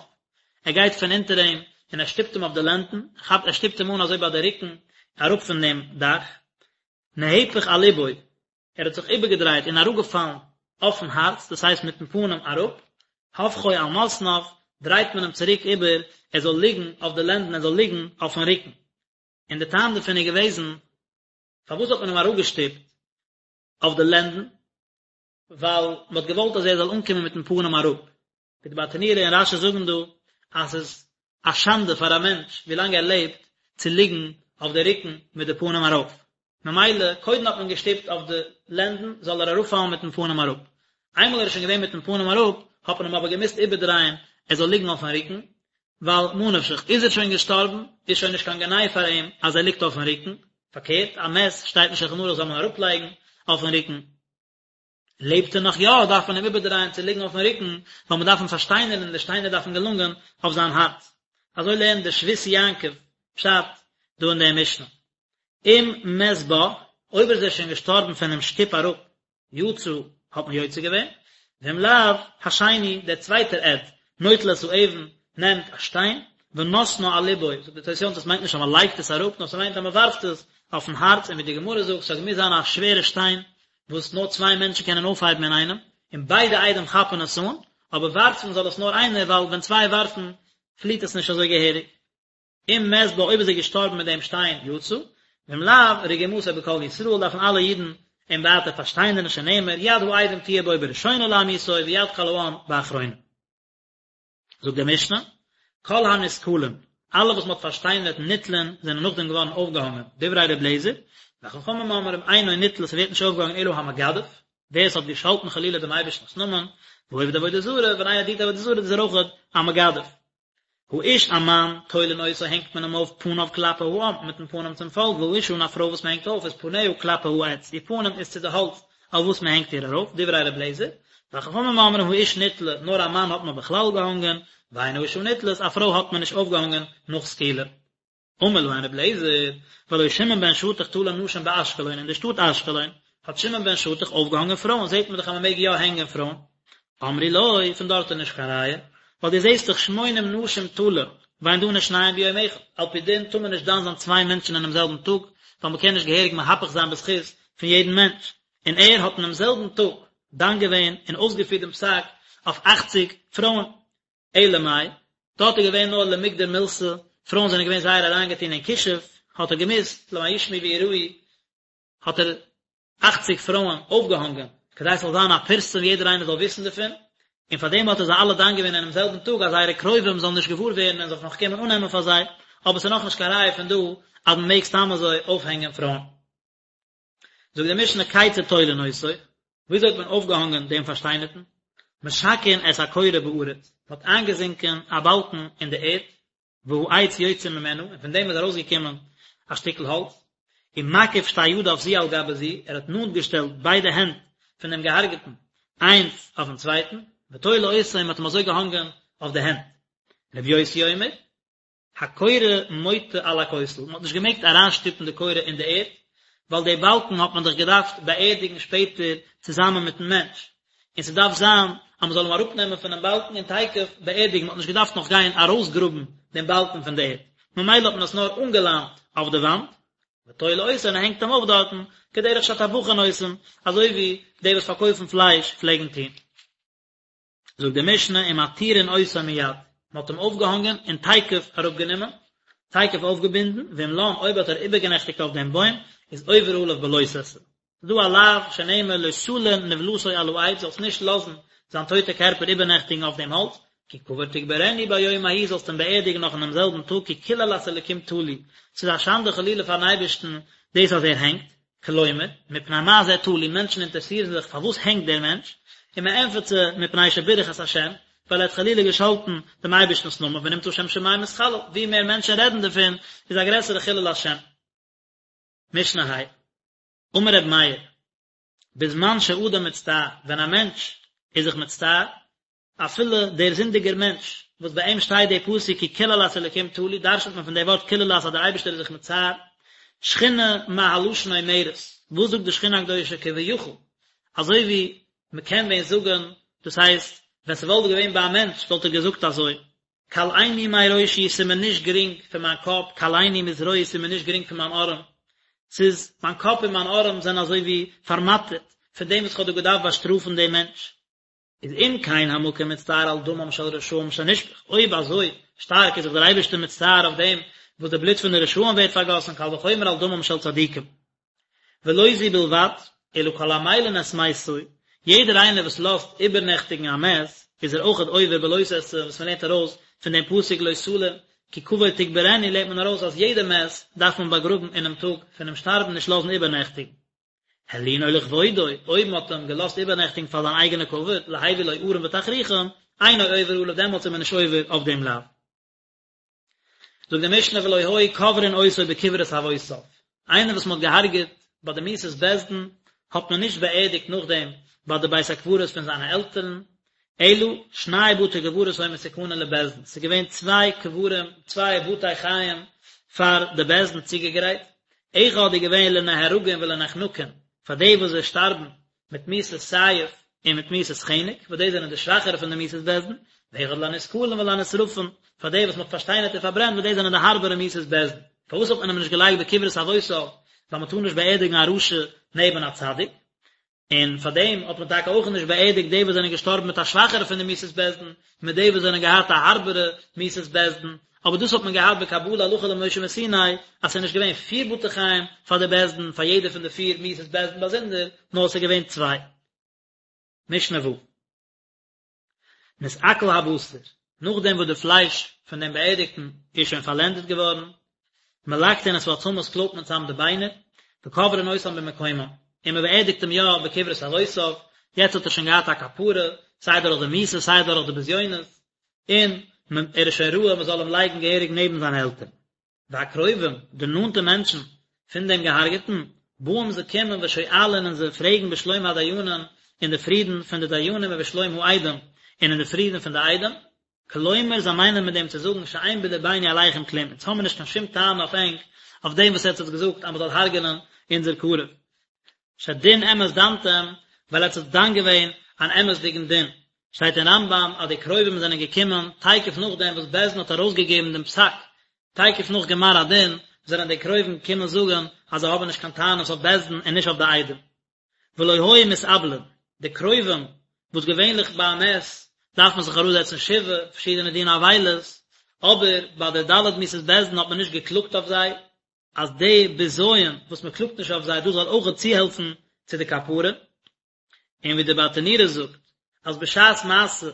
ער גייט פון אונטער אים און ער שטופט אים אויף די לענדן, כאפט ער שטופט אים אן אזוי ביי די רוקן אראפ פון דעם דאך, נהפך על לבו, ער האט זיך איבערגעדרייט און אראפגעפאלן אויפן הארץ, דאס הייסט מיטן פנים אראפ, הופכו על מתניו, דרייט מען אים צוריק איבער, ער זאל ליגן אויף די לענדן, ער זאל ליגן אויפן רוקן. און די טעם דערפון איז געוועזן, פארוואס האט מען אים אראפגעשטופט אויף די לענדן? ווייל מען האט געוואלט אז ער זאל אנקומען מיטן פנים אראפ. ווי די ברטנורא און רש"י זאגן דא, אז ס'איז א שאנדע פאר א מענטש ווילאנג ער לעבט צו ליגן אויף די רוקן מיט די פנים ארויף. ממילא קודם האט מען געשטופט אויף די לענדן זאל ער אראפפאלן מיטן פנים אראפ. איינמאל ער איז שוין געווען מיטן פנים אראפ, האט מען אים אבער געמוזט איבערדרייען ער זאל ליגן אויפן רוקן, ווייל ממה נפשך, איז ער שוין געשטארבן, איז שוין נישט קיין גנאי פאר אים אז ער ליגט אויפן רוקן, פארקערט, א מת שטייט אין שולחן ערוך זאל מען אראפלייגן אויפן רוקן. לעבט ער נאך יא, דארף מען אים איבערדרייען צו ליגן אויפן רוקן, ווייל מען דארף אים פארשטיינערן און די שטיינער דארפן געלאנגען אויף זיין הארץ. אזוי לערנט דער שבות יעקב פשט דא אין דער משנה. אם מת בה, אויב איז ער שוין געשטארבן פונעם שטופ אראפ, יצא, האט מען יוצא געווען, ואם לאו, השני, דער צווייטער עד, נוטל את האבן, נעמט א שטיין, ונותנה על לבו, זאגט דער תוס' יום טוב עס מיינט נישט אז מען לייגט עס אראפ, נאר ס'מיינט אז מען ווארפט עס אויפן הארץ, און ווי די גמרא זאגט, ס'האט געמוזט זיין א שווערע שטיין, וואס נאר צוויי מענטשן קענען אויפהייבן אינאיינעם, און ביידע עדים כאפן עס אן, אבער ווארפן זאל עס נאר איינער, ווייל ווען צוויי ווארפן פליט עס נישט אזוי געהעריג. אם מת בה אויב איז ער געשטארבן מיט דעם שטיין יצא, ואם לאו, רגימתו בכל ישראל דארפן אלע אידן אים ווייטער פארשטיינערן שנאמר יד העדים תהיה בו בראשונה להמיתו ויד כל העם באחרונה. זאגט די משנה, כל הנסקלים, אלע וואס מען האט פארשטיינערט נתלין זענען נאכדעם געווארן אויפגעהאנגען, דברי ר' אליעזר, וחכמים אומרים אינו נתלה ס'ווערט נישט אויפגעהאנגען אלא המגדף, ווער עס האט געשאלטן חלילה דעם אייבערשטנ'ס נאמען, והעובד עבודה זרה, ווען איינער דינט עבודה זרה איז ער אויך א מגדף. האיש א מאן, תולין אותו הענגט מען אים אויף פניו כלפי העם, מיטן פנים צום פאלק, והאשה און א פרוי וואס מען הענגט אויף איז פניה כלפי העץ, איר פנים איז צו די האלץ אויף וואס מען הענגט איר ארויף, דברי ר' אליעזר, וחכמים אומרים האיש נתלה, נאר א מאן האט מען בכלל געהאנגען, ואין האשה נתלית, א פרוי האט מען נישט אויפגעהאנגען נאך סקילה. אמר להן רבי אליעזר, והלא שמעון בן שטח תלה נשים באשקלון, אין די שטאט אשקלון האט שמעון בן שטח אויפגעהאנגען פרויען, זעט מען דאך אז מען מעג יא הענגען פרויען. אמרו לו, פון דארט איז נישט קיין ראיה, ווייל דו זעסט דאך שמונים נשים תלה, ואין דנין שניים ביום אחד, על פי דין טאר מען נישט דן זיין צוויי מענטשן אינעם זעלבן טאג, ווייל מען קען נישט געהעריג מהפך זיין בזכות פון יעדן מענטש, און ער האט אינעם זעלבן טאג דן געווען און אויסגעפירט דעם פסק אויף אכציג פרויען. אלא מאי, דארט איז געווען נאר למגדר מילתא, פרויען זענען געווען זייער אריינגעטון אין כישוף, האט ער געמוזט, למען ישמעו ויראו, האט ער אכציג פרויען אויפגעהאנגען, כדי ס'זאל זיין א פרסום יעדער איינער זאל וויסן דערפון, און פאר דעם האט ער זיי אלע דן געווען אינעם זעלבן טאג אז זייערע קרובים זאלן נישט געוואר ווערן און זיך נאך קומען אננעמען פאר זיי, אבער ס'איז נאכנישט קיין ראיה פון דא אז מ'מעג סתם אזוי אויפהענגען פרויען. זאגט די משנה כיצד תולין אותו, וויאזוי האט מען אויפגעהאנגען דעם פארשטיינערטן? משקעין את הקורה בארץ, מ'האט איינגעזינקען א באלקן אין די ערד, והעץ יוצא ממנה, און פון דעם איז ארויסגעקומען א שטיקל האלץ, ומקיף שתי ידיו זו על גבי זו, ער האט נאנט געשטעלט ביידע הענט פון דעם געהארגעטן איינס אויפן צווייטן, ותולה אותו, און מען האט אים אזוי געהאנגען אויף די הענט. רבי יוסי אומר, הקורה מוטה על הכותל, מען האט נישט געמעגט אריינשטופן די קורה אין די ערד, ווייל די באלקן האט מען דאך געדארפט באערדיגן שפעטער צוזאמען מיטן מענטש, און ס'דארף זיין אז מ'זאל אים אראפנעמען פונעם באלקן און תיכף באערדיגן, מ'האט נישט געדארפט נאך גיין ארויסגראבן דעם באלקן פון די ערד, ממילא האט מען עס נאר אנגעליינט אויף די וואנט, ותולה אותו און ער הענגט אים אויף דארטן, כדרך שהטבחין עושים, אזוי ווי די וואס פארקויפן פלייש פלעגן טון. זאגט די משנה ומתירין אותו מיד, מען האט אים אויפגעהאנגען און תיכף אראפגענומען, תיכף אויפגעבינדן, ואם לן אויב האט ער איבערגענעכטיגט אויף דעם בוים, איז עובר עליו בלא תעשה. ס'איז דא א לאו שנאמר לא תלין נבלתו על העץ, זאלסט נישט לאזן זיין טויטע קערפער איבערנעכטיגן אויף דעם האלץ, כי קבור תקברנו ביום ההוא זאלסט אים באערדיגן נאך אינעם זעלבן טאג כי קללת אלקים תלוי, ס'איז א שאנדע חלילה פארן אייבערשטן דאס אז ער הענגט, כלומר, מפני מה זה תלוי, מענטשן אינטערעסירן זיך פארוואס הענגט דער מענטש, און מען ענטפערט זיי, מפני שבירך את השם, ווייל ער האט חלילה געשאלטן דעם אייבערשטנ'ס נאמען, ונמצא שם שמים מתחלל, ווי מער מענטשן רעדן דערפון, איז א גרעסערע חילול השם. משנה ה'. אמר רבי מאיר, בזמן שאדם מצטער, ווען א מענטש איז זיך מצטער, אפילו דער זינדיגער מענטש, וואס ביי אים שטייט דער פסוק כי קללת אלקים תלוי, דרש'נט מען פון דער ווארט קללת אז דער אייבערשטער איז זיך מצער, שכינה מה הלשון אומרת, וואס זאגט די שכינה הקדושה כביכול, אזוי ווי מען קען ווען זאגן, דאס הייסט, ווען ס'וואלט געווען ביי א מענטש וואלט ער געזאגט אזוי, קלני מראשי ס'איז מיר נישט גרינג פון מיין קאפ, קלני מזרועי ס'איז מיר נישט גרינג פון מיין ארעם, ס'איז, מיין קאפ און מיין ארעם זענען אזוי ווי פארמאטערט פון דעם וואס כ'האב דא געדארפט באשטראפן דעם מענטש. איז אם כן המקום מצטער על דמם של רשעים שנשפך, אויב אזוי שטארק איז זיך דער אייבערשטער מצטער אויף דעם וואס די בלוט פון די רשעים ווערט פארגאסן, קל וחומר על דמם של צדיקים. ולא זו בלבד, אלא כל המלין את מתו, יעדער איינער וואס לאזט איבערנעכטיגן א מת, איז ער אויכעט עובר בלא תעשה, וואס מען לערנט ארויס פון דעם פסוק לא תלין, כי קבור תקברנו לערנט מען ארויס אז יעדע מת דארף מען באגראבן אינעם טאג פונעם שטארבן נישט לאזן איבערנעכטיגן. הלינו לכבודו, אויב מען האט אים געלאזט איבערנעכטיגן פאר זיין אייגענע כבוד, להביא לו ארון ותכריכים, אינו עובר עליו, דעמאלטס איז מען נישט עובר אויף דעם לאו. זאגט די משנה ולא היו קוברין אותו בקברות אבותיו, איינער וואס מען האט געהארגעט ביי די מיתת בית דין האט מען נישט באערדיגט נאכדעם ביי די בית הקברות פון זיינע עלטערן, אלא שני בתי קברות היו מתוקנין לבית דין, ס'איז געווען צוויי קברים, צוויי בתי חיים פאר די בית דין צוגעגרייט, אחד איז געווען לנהרגין ולנחנקין, פאר די וואס זיי שטארבן מיט מיתת סייף און מיט מיתת חנק, וואס די זענען די שוואכערע פון די מיתות בית דין, ואחד לנסקלין ולנשרפין, פאר די וואס מען האט פארשטיינערט און פארברענט, וואס די זענען די הארבערע מיתות בית דין. פארוואס האט מען אים נישט געלייגט בקברות אבותיו, ווייל מען טאר נישט באערדיגן א רשע נעבן א צדיק? און פאר דעם האט מען טאקע אויך נישט באערדיגט די וואס זענען געשטארבן מיט א שוואכערע פון די מיתות בית דין, מיט די וואס זענען געהאט א הארבערע מיתת בית דין, אבער דאס האט מען געהאט בקבלה הלכה למשה מסיני, אז ס'איז נישט געווען פיר בתי חיים פאר די בית דין, פאר יעדע פון די פיר מיתות בית דין באזונדער, נאר ס'איז געווען צוויי. משנה ו'. נתעכל הבשר, נאכדעם וואס די פלייש פון דעם באערדיגטן איז שוין פארלענדעט געווארן, מלקטין את העצמות קלויבט מען צאם די ביינער, וקוברין אותם במקומם, און מען באערדיגט אים יא בקברות אבותיו, יעצט האט ער שוין געהאט א כפרה, סיי דורך די מיתה סיי דורך די בזיונות, און ער איז שוין ראוי מען זאל אים לייגן געהעריג נעבן זיינע עלטערן. והקרובים, די נאנטע מענטשן פון דעם געהארגעטן, באים זיי קומען ושואלין און זיי פרעגן בשלום הדיינים אין די פרידן פון די דיינים ובשלום העדים און אין די פרידן פון די עדים, כלומר זיי מיינען מיט דעם צו זאגן שאין בלבנו עליכם כלום, אונז האמיר נישט קיין שום טענה אויף ענק אויף דעם וואס עטץ האט געזאגט אז מען זאל הרג'נען אונזער קרוב. שדין אמת דנתם, ווייל עטץ האט דן געווען אן אמת'דיגן דין. שטייט אין רמב"ם אז די קרובים זענען געקומען תיכף נאכדעם וואס בית דין האט ארויסגעגעבן דעם פסק, תיכף נאך גמר הדין זענען די קרובים געקומען זאגן אז זיי האבן נישט קיין טענות אויף בית דין און נישט אויף די עדים. ולא היו מתאבלין, די קרובים וואס געווענליך ביי א מת דארף מען זיך אראפזעצן שבעה, פארשידענע דיני אבילות, אבער ביי די ד' מיתות בית דין האט מען נישט געקלאגט אויף זיי, אז די בזיון וואס מען קלאגט נישט אויף זיי דאס זאל אויכעט צוהעלפן צו די כפרה, און ווי די ברטנורא זאגט. אז בשעת מעשה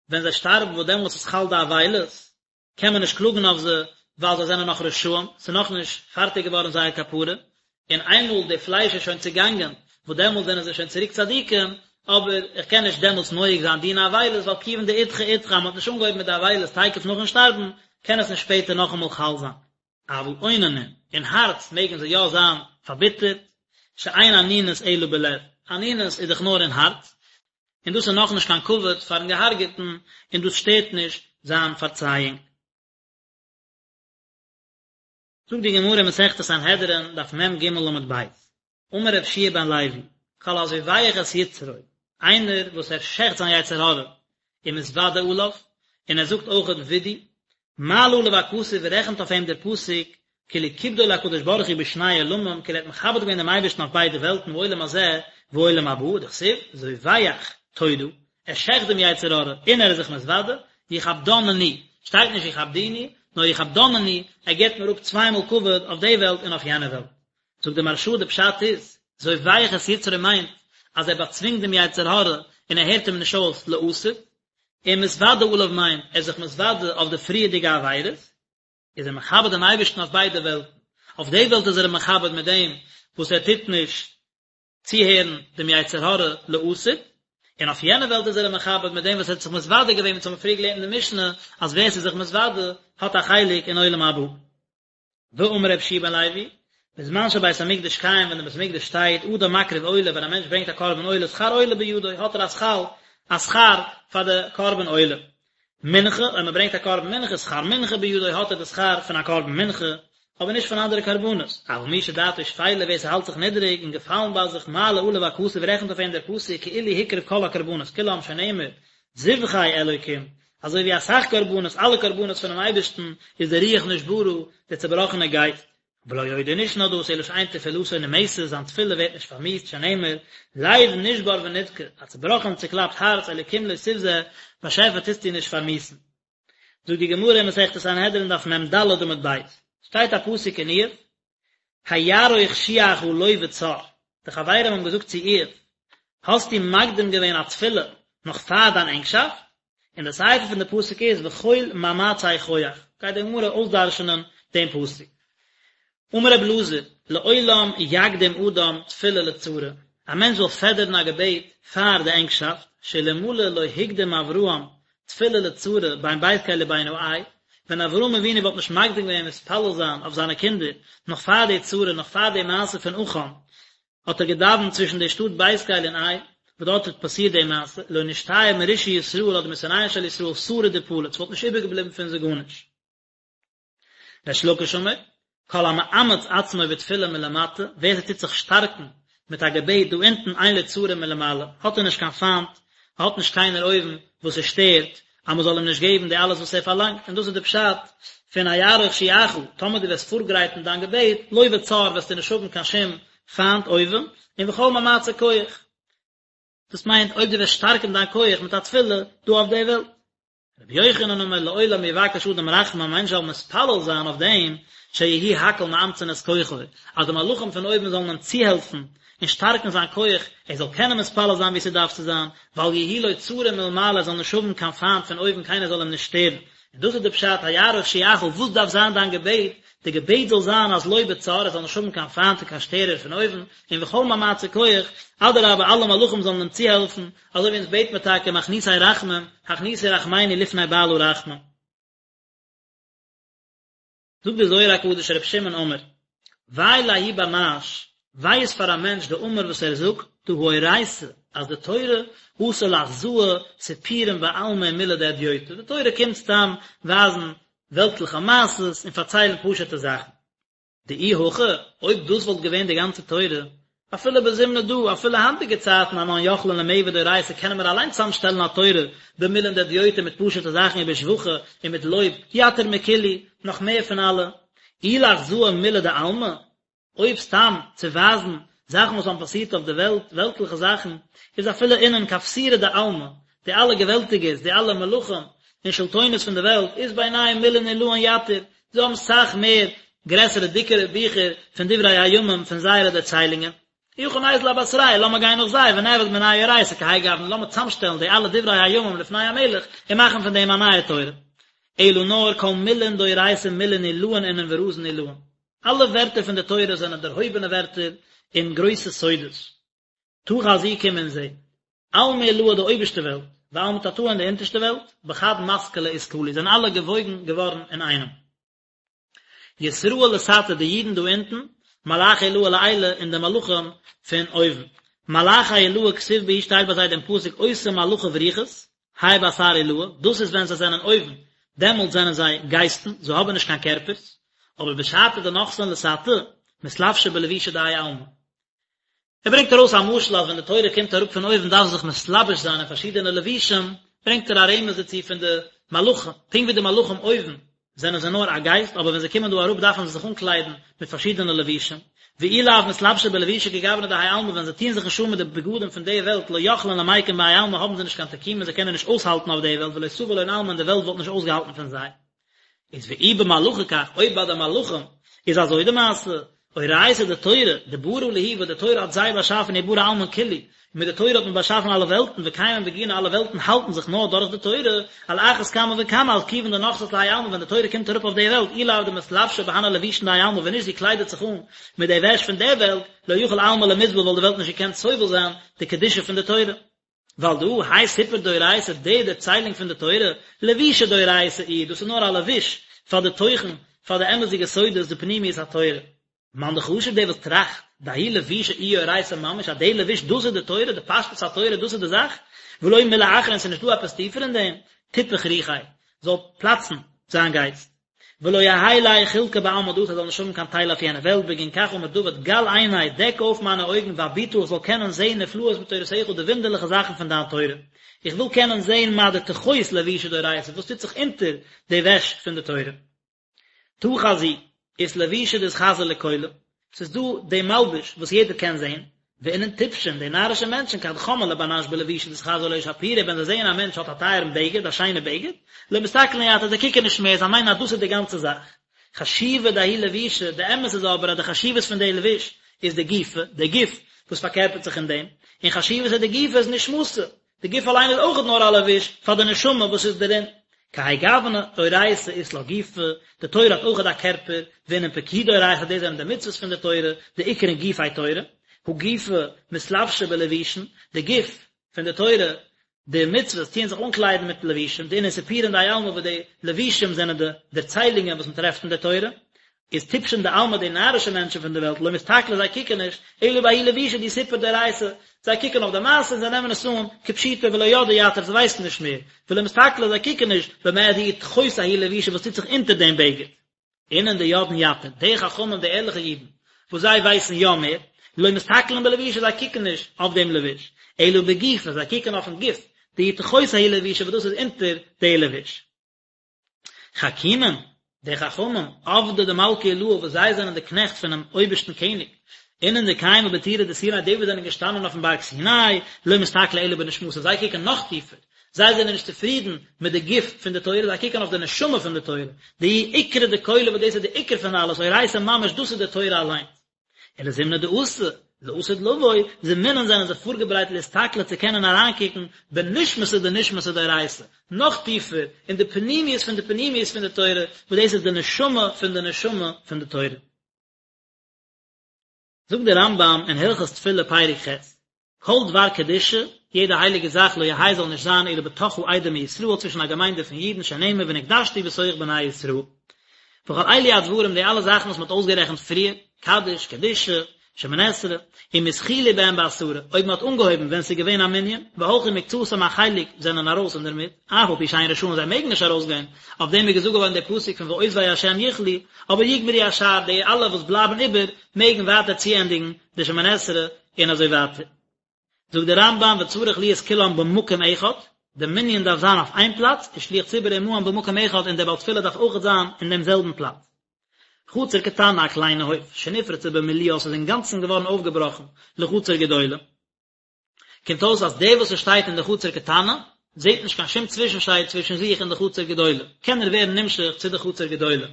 ווען זיי שטארבן וואס דעמאלטס איז חל די אבילות, קען מען נישט קלאגן אויף זיי ווייל זיי זענען נאך רשעים, ס'איז נאכנישט פארטיג געווארן זייער כפרה, און איינמאל די פלייש איז שוין צעגאנגען, וואס דעמאלטס זענען זיי שוין צוריק צדיקים, אבער איך קען נישט דעמאלטס נוהג זיין דיני אבילות ווייל כיוון דאידחי אידחי אז מ'האט נישט אנגעהויבן מיט די אבילות תיכף נאכן שטארבן, קען עס נישט שפעטער נאכאמאל חל זיין. אבל אוננין, אין הארץ מעגן זיי יא זיין פארביטערט, שאין אנינות אלא בלב, אנינות איז דאך נאר אין הארץ, און דאס איז נאכנישט קיין כבוד פארן געהארגעטן, און דאס שטערט נישט זיין פארצייאונג. זאגט די גמרא אין מסכת סנהדרין, דף מ"ג עמוד ב', אמר רבי יהושע בן לוי, כל הזובח את יצרו, איינער וואס ער שעכט זיין יצר הרע, ומתוודה עליו, און ער זאגט אויכעט וידוי, מעלה עליו הכתוב רעכנט אויף אים דער פסוק, כאילו כיבדו להקדוש ברוך הוא בשני עולמים, כאילו ער האט מכבד געווען דעם אייבערשטן אויף ביידע וועלטן בעולם הזה ועולם הבא, דכתיב, זובח תודה, ער שעכט דעם יצר הרע און ער איז זיך מתוודה, יכבדנני, שטייט נישט יכבדוני, נאר יכבדנני, ער געבט מיר אפ צוויי מאל כבוד אויף די וועלט און אויף יענע וועלט. זאגט דער מהרש"א די פשט איז, זובח את יצרו מיינט אז ער באצווינגט דעם יצר הרע און ער הערט אים נישט אויס לעתיד, און מתוודה עליו מיינט ער איז זיך מתוודה אויף די פריערדיגע עבירות, איז ער מכבד דעם אייבערשטן אויף ביידע וועלטן, אויף די וועלט איז ער אים מכבד מיט דעם וואס ער טוט נישט צוהערן דעם יצר הרע לעתיד, און אויף יענע וועלט איז ער אים מכבד מיט דעם וואס ער האט זיך מתוודה געווען, ווי אונז האבן פריער געלערנט אין די משנה אז ווער ס'איז זיך מתוודה האט א חלק אין עולם הבא. ואמר רבי יהושע בן לוי, בזמן שבית המקדש קיים ווען די בית המקדש שטייט, אדם מקריב עולה, ווען א מענטש ברענגט א קרבן עולה, שכר עולה בידו, האט ער א שכר, א שכר פאר די קרבן עולה. מנחה, אויב מען ברענגט א קרבן מנחה, שכר מנחה בידו, האט ער די שכר פון א קרבן מנחה, אבער נישט פון אנדערע קרבנות. אבל מי שדעתו שפלה, ווער ס'האלט זיך נידעריג און געפאלן ביי זיך, מעלה עליו הכתוב, רעכנט אויף אים דער פסוק כאילו הקריב כל הקרבנות כולם שנאמר, זבחי אלוקים, אזוי ווי אסאך קרבנות, אלע קרבנות פונעם אייבערשטן, איז די רוח נשברה, דער צעבראכענער גייסט. ולא עוד און נישט נאר דאס, אלא שאין תפילתו נמאסת, זיין תפילה ווערט נישט פארמיאוסט, שנאמר, לב נשבר ונדכה, א צעבראכן און צעקלאפט הארץ, אלוקים לא תבזה, באשעפער טוסטו נישט פארמיאוסן. זאגט די גמרא אין מסכת סנהדרין דף מ"ד עמוד ב', שטייט א פסוק אין איוב, היערוך שועך לא בצר, די חברים האבן געזאגט צו איוב, האסטו מקדים געווען א תפילה נאך פאר דיין ענגשאפט? און די סיפא פון די פסוק איז וכל מאמצי כח, גייט די גמרא אויסדרש'נען דעם פסוק. אמר רבי אלעזר, לעולם יקדים אדם תפילה לצרה, א מענטש זאל פעדערן א געבעט פאר די ענגשאפט, שאלמלא לא הקדים אברהם תפילה לצרה בין בית קל ובין העי, ווען אברהם אבינו וואלט נישט מקדים געווען מתפלל זיין אויף זיינע קינדער נאך פאר די צרה, נאך פאר די מעשה פון עכן, האט ער געדאווענט צווישן די שטאט בית קל און עי, וואס דארט האט פאסירט די מעשה, לא נשתייר מרשעי ישראל אדער משונאיהם של ישראל שריד ופליט, ס'וואלט נישט איבערגעבליבן פון זיי גארנישט. ריש לקיש אמר, כל המאמץ עצמו בתפילה מלמטה, ווער ס'טוט זיך שטארקן מיט א געבעט דא אונטן אין לו צרה מלמעלה, האט ער נישט קיין פיינט, האט נישט קיינער אויבן וואס עס שטערט אז מ'זאל אים נישט געבן די אלעס וואס ער פארלאנגט, און דאס איז די פשט פון היערוך שועך, טאמער דו וועסט פארגרייטן דיין געבעט, לא בצר וועסטו נישט האבן קיין שום פיינט אויבן, און וכל מאמצי כח. דאס מיינט אויב דו וועסט שטארקן דיין כח מיט א תפילה דא אויף די וועלט. רבי יוחנן אמר לעולם יבקש אדם רחמים א מענטש זאל מתפלל זיין אויף דעם שיהי' הכל מאמצין את כוחו אז די מלאכים פון אויבן זאלן אים צוהעלפן און שטארקן זיין כח ער זאל קענען מתפלל זיין ווי ס'דארף צו זיין ואל יהי' לו צרה מלמעלה ער זאל נישט האבן קיין פיינט פון אויבן קיינער זאל אים נישט שטערן און דאס איז די פשט היערוך שועך וואס דארף זיין דיין געבעט די געבעט זאל זיין אז לא בצר ער זאל נישט האבן קיין פיינט און קיין שטערער פון אויבן און וכל מאמצי כח אדרבה אלע מלאכים זאלן אים צוהעלפן אזוי ווי אונז בעט מיר טאקע מכניסי רחמים, הכניסו רחמינו לפני בעל הרחמים. זאגט דער זוהר הקדוש רבי שמעון אמר, וויי לההוא בר נש, וויי איז פאר א מענטש דאמר וואס ער זאגט, דהא אורייתא, אז די תורה אתא לאחזאה סיפורין בעלמא ומילי דהדיוטא, די תורה קומט סתם ווייזן וועלטליכע מעשות און פארציילן פשוט'ע זאכן. דאי הכי, אויב דאס וואלט געווען די גאנצע תורה, אפילו בזמנא דא, אפילו היינטיגע צייטן אנן יכלין למעבד אורייתא קענען מיר אליין צוזאמשטעלן א תורה במילין דהדיוטא מיט פשוט'ע זאכן ובשבחא און מיט לויב, יתיר מכולהו, נאך מער פון אלע. אי לאחזאה מילי דעלמא, אויב סתם צו ווייזן זאכן וואס האבן פאסירט אויף די וועלט, וועלטליכע זאכן, איז אפילו אינון כפסירי דעלמא, די אלע געוועלטיגערס, די אלע מלכים און שלטונות פון די וועלט, אית בינייהו מילין עילאין יתיר, זיי האבן סאך מער גרעסערע דיקערע ביכער פון דברי הימים פון זייערע דערציילונגען. אי הכי ניזיל אבתרייהו, לאמיר גיין נאך זיי, ונעביד מינייהו אורייתא כהאי גוונא, לאמיר צאמשטעלן די אלע דברי הימים לפני המלך, און מאכן פון דעם א נייע תורה. אלא נאר כל מילין דאורייתא מילין עילאין אינון ורזין עילאין. אלע ווערטער פון די תורה זענען דערהויבענע ווערטער און גרויסע סודות. תא חזי קום און זע. עלמא עילאה די אויבערשטע וועלט, ועלמא תתאה און די אונטערשטע וועלט, בחד מתקלא אתקלו, זענען אלע געוואויגן געווארן אינאיינעם. ישראל לתתא די אידן דא אונטן, מלאכי עילאה לעילא און די מלאכים פון אויבן. מלאכי עילאה כתיב בהו שטייט ביי זיי דעם פסוק אותם מלאכיו רוחות, האי באתר עילאה, דאס איז ווען זיי זענען אויבן, דעמאלט זענען זיי גייסטן, זיי האבן נישט קיין קערפערס, אבער בשעתא דנחתין לתתא, מתלבשי בלבושי דהאי עלמא. ער ברענגט ארויס א משל אז ווען די תורה קומט אראפ פון אויבן דארף זי זיך מתלבש זיין אין פארשידענע לבושים, ברענגט ער א רמז דערצו פון די מלאכים, פונקט ווי די מלאכים אויבן זענען זיי נאר א גייסט, אבער ווען זיי קומען דא אראפ דארפן זיי זיך אנקליידן מיט פארשידענע לבושים, ואי לאו מתלבשי בלבושי כגוונא דהאי עלמא ווען זיי טוען זיך נישט אן מיט די בגדים פון די וועלט לא יכלין למיקם בהאי עלמא האבן זיי נישט קיין תקומה זיי קענען נישט אויסהאלטן אויף די וועלט ולא סביל לון עלמא און די וועלט וואלט נישט אויסגעהאלטן פון זיי. איז ואי במלאכי כך, אויב ביי די מלאכים איז אזוי די מעשה, אורייתא די תורה, דברא להו וואס די תורה האט זיי באשאפן וברא עלמין כולהו, און מיט די תורה האט מען באשאפן אלע וועלטן, וקיימין בגינה אלע וועלטן האלטן זיך נאר דורך די תורה, על אחת כמה וכמה על כיוון דנחתת להאי עלמא ווען די תורה קומט אראפ אויף די וועלט, אי לאו דמתלבשא בהני לבושין דהאי עלמא ווען נישט זי קליידעט זיך אן מיט די וועש פון די וועלט, לא יכיל עלמא למסבל וואלט די וועלט נישט געקענט סובל זיין די קדושה פון די תורה. ועל דא האי סיפור דאורייתא די דערציילונג פון די תורה, לבושא דאורייתא איהו, דאס איז נאר א לבוש פאר די תוכן, פאר די אמת'דיגע סודות די פנימיות התורה. מאן דחשיב דער וואס טראכט, דההוא לבושא איהו אורייתא ממש, אז די לבוש דאס איז די תורה, די פשטות התורה דאס איז די זאך, ולא מילי אחרא און ס'איז נישטא עפעס טיפער אין דעם, תיפח רוחיה, זאל פלאצן זיין גייסט. ולא יהא ליה חולקא בעלמא דאתי ער זאל נישט האבן קיין טייל אויף יענע וועלט בגין כך אמר דוד גל עיני דעק אויף מיינע אויגן ואביטה איך זאל קענען זעהן נפלאות מתורתך די וואונדערליכע זאכן פון דיין תורה איך וויל קענען זעהן מה דתחות לבושא דאורייתא וואס טוט זיך אונטער די וועש פון די תורה תא חזי אית לבושא דאתחזי לכולא ס'איז דא די מלבוש וואס יעדער קען זען, ואינון טיפשין, די נארישע מענטשן, כד חמאן לבר נש בלבושא דאתחזי לאיש שפירא, ווען זיי זעען א מענטש האט א טייערן בגד, א שיינע בגד, לא מסתכלין יתיר, זיי קוקן נישט מער, זיי מיינען אז דאס איז די גאנצע זאך. חשיבא דההוא לבושא, די אמת איז אבער אז די חשיבות פון די לבוש איז דגופא, די גוף וואס פארקערפערט זיך אין דעם, און חשיבותא דגופא איז נשמתא, די גוף אליין איז אויכעט נאר א לבוש פאר די נשמה וואס איז דערין. כהאי גוונא, אורייתא אית לה גופא, די תורה האט אויכעט א קערפער, ואינון פקודי אורייתא דאס זענען די מצוות פון די תורה, דאקרון גופי תורה, הא גופא מתלבשא בלבושין, די גוף פון די תורה, די מצוות טוען זיך אנקליידן מיט לבושים, דאינון סיפורין דהאי עלמא וואס די לבושים זענען די דערציילונגען וואס מען טרעפט אין די תורה, איז טיפשין דעלמא די נארישע מענטשן פון די וועלט לא מסתכלי זיי קוקן נישט, אלא בההוא לבושא דהוא סיפור דאורייתא, זיי קוקן אויף די מעשה און זיי נעמען עס אן כפשוטו ולא ידעי יתיר זיי ווייסן נישט מער, ולא מסתכלי זיי קוקן נישט במה דאיהו תחות ההוא לבושא וואס טוט זיך אונטער דעם בגד. אינון דידעין יתיר, די חכמים די ערליכע אידן וואס זיי ווייסן יא מער, לא מסתכלין בלבושא זיי קוקן נישט אויף דעם לבוש, אלא בגופא זיי קוקן אויפן גוף, דאיהו תחות ההוא לבושא וואס דאס איז אונטער די לבוש. חכימין, די חכמים, עבדי דמלכא עילאה וואס זיי זענען די קנעכט פונעם אויבערשטן קעניג, אינון דקיימי בטורא דסיני די וואס זענען געשטאנען אויפן בארג סיני, לא מסתכלי אלא בנשמתא, זיי קוקן נאך טיפער, זיי זענען נישט צופרידן מיט די גוף פון די תורה, זיי קוקן אויף די נשמה פון די תורה, דהיא עיקרא דכולא וואס דאס איז די עיקר פון אלעס, אורייתא ממש דאס איז די תורה אליינס. ולזמנא דאתי, לעתיד לבוא, זמינין זענען זיי פארגעברייט לאסתכלא צו קענען אריינקוקן בנשמתא דנשמתא דאורייתא, נאך טיפער, אין די פנימיות פון די פנימיות פון די תורה, וואס דאס איז די נשמה פון די נשמה פון די תורה. זאגט דער רמב"ם אין הלכות תפילה פרק ח', כל דבר קדושה, יעדע הייליגע זאך לא יהא זאל נישט זיין אלא בתוך העדה מישראל צווישן א געמיינדע פון אידן שנאמר ונקדשתי בתוך בני ישראל. וכל אלו הדברים די אלע זאכן וואס מען האט אויסגערעכנט פריער, קדיש, קדושה, שמונה עשרה, אם התחילו בהם בעשרה, אויב מען האט אנגעהויבן ווען ס'איז געווען א מנין, והלכו מקצתם א חלק זענען ארויס אינדערמיט, אף על פי שאין רשאין זיי מעגן נישט ארויסגיין, אויף דעם איז געזאגט געווארן דער פסוק פון ועוזבי השם יכלו, אבער יגמרו השאר די אלע וואס בלייבן איבער מעגן ווייטער צוענדיגן די שמונה עשרה און אזוי ווייטער. זאגט דער רמב"ם וצריך להיות כולם במקום אחד, די מנין דארף זיין אויף איין פלאץ, ושליח ציבור עמהם במקום אחד און דער בעל תפילה דארף אויכעט זיין אין דעם זעלבן פלאץ. חצר קטנה א קליינע הויף, שנפרצה במילואה ס'איז אינגאנצן געווארן אויפגעבראכן לחצר גדולה, קומט אויס אז דער וואס עס שטייט אין די חצר קטנה זעט נישט קיין שום צווישנשייד צווישן זיך און די חצר גדולה, קען ער ווערן נמשך צו די חצר גדולה.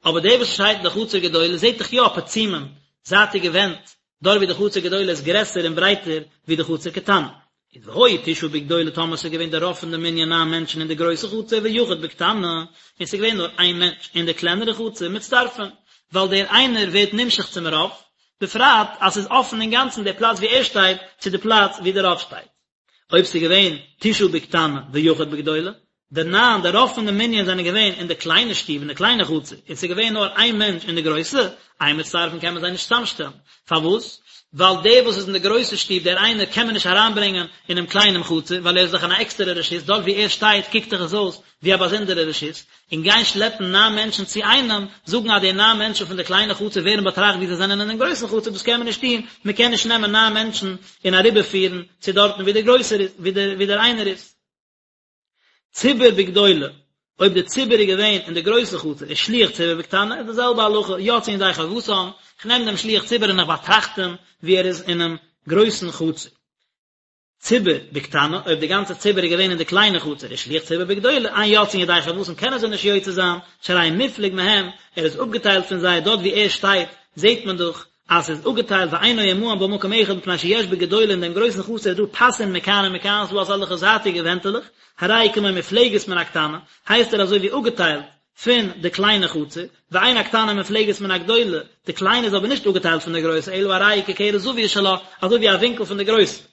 אבער דער וואס שטייט אין די חצר גדולה זעט דאך יא פצימים, זייטיגע ווענט. דארט ווי די חצר גדולה איז גרעסער און ברייטער ווי די חצר קטנה. איז והיו תשעה בגדולה טאמער ס'איז געווען די רוב פון די מנין ניין מענטשן אין די גרויסע חצר ויחיד בקטנה, און ס'איז געווען נאר איין מענטש אין די קלענערע חצר מצטרפין, ווייל דער איינער ווערט נמשך צום רוב, בפרט אז ס'איז אפן אינגאנצן די פלאץ ווי ער שטייט צו די פלאץ ווי די רוב שטייט. אויב ס'איז געווען תשעה בקטנה ויחיד בגדולה, די ניין, די רוב פון די מנין זענען געווען אין די קליינע שטוב, אין די קליינע חצר, און ס'איז געווען נאר איין מענטש אין די גרויסע, אין מצטרפין קען מען זיי נישט צוזאמשטעלן. פארוואס? ווייל דער וואס איז אין די גרויסע שטוב, דער איינער, קען מען נישט אריינברענגען אינעם קליינעם חצר, ווייל ער איז דאך אין א עקסטערע רשות, דארט וואו ער שטייט קוקט דאך עס אויס ווי א באזונדערע רשות, און גיין שלעפן ניין מענטשן צו איינעם, זאגן אז די ניין מענטשן פון די קליינע חצר ווערן באטראכט ווי זיי זענען אינעם גרויסן חצר, דאס קען מען נישט טון, מען קען נישט נעמען ניין מענטשן און אריבערפירן צו דארטן וואו דער גרויסער איז, וואו דער איינער איז. ציבור בגדולה, אויב די ציבור איז געווען אין די גרויסע חצר ושליח ציבור בקטנה איז די זעלבע הלכה, יוצאין ידי חובתם, איך נעם דעם שליח ציבור און איך באטראכט אים ווי ער איז אינעם גרויסן חצר. ציבור בקטנה, אויב די גאנצע ציבור איז געווען אין די קליינע חצר ושליח ציבור בגדולה, אין יוצאין ידי חובתם קענען זיי נישט יוצא זיין, שהרי מופלג מהם, ער איז אפגעטיילט פון זיי, דארט ווי ער שטייט זעט מען דאך אז ס'איז אפגעטיילט ואינו עמהם במקום אחד מפני שיש בגדולה אין דעם גרויסן חצר איז דא פסין מכאן ומכאן ס'איז דא אזעלכע זייטיגע ווענטעלעך, הרי הוא כמו מופלגת מן הקטנה, הייסט ער אזוי ווי אפגעטיילט פון די קליינע חצר, ואין הקטנה מופלגת מן הגדולה, די קליינע איז אבער נישט אפגעטיילט פון די גרויסע אלא הרי היא כקרן זווית שלה, אזוי ווי א ווינקל פון די גרויסע.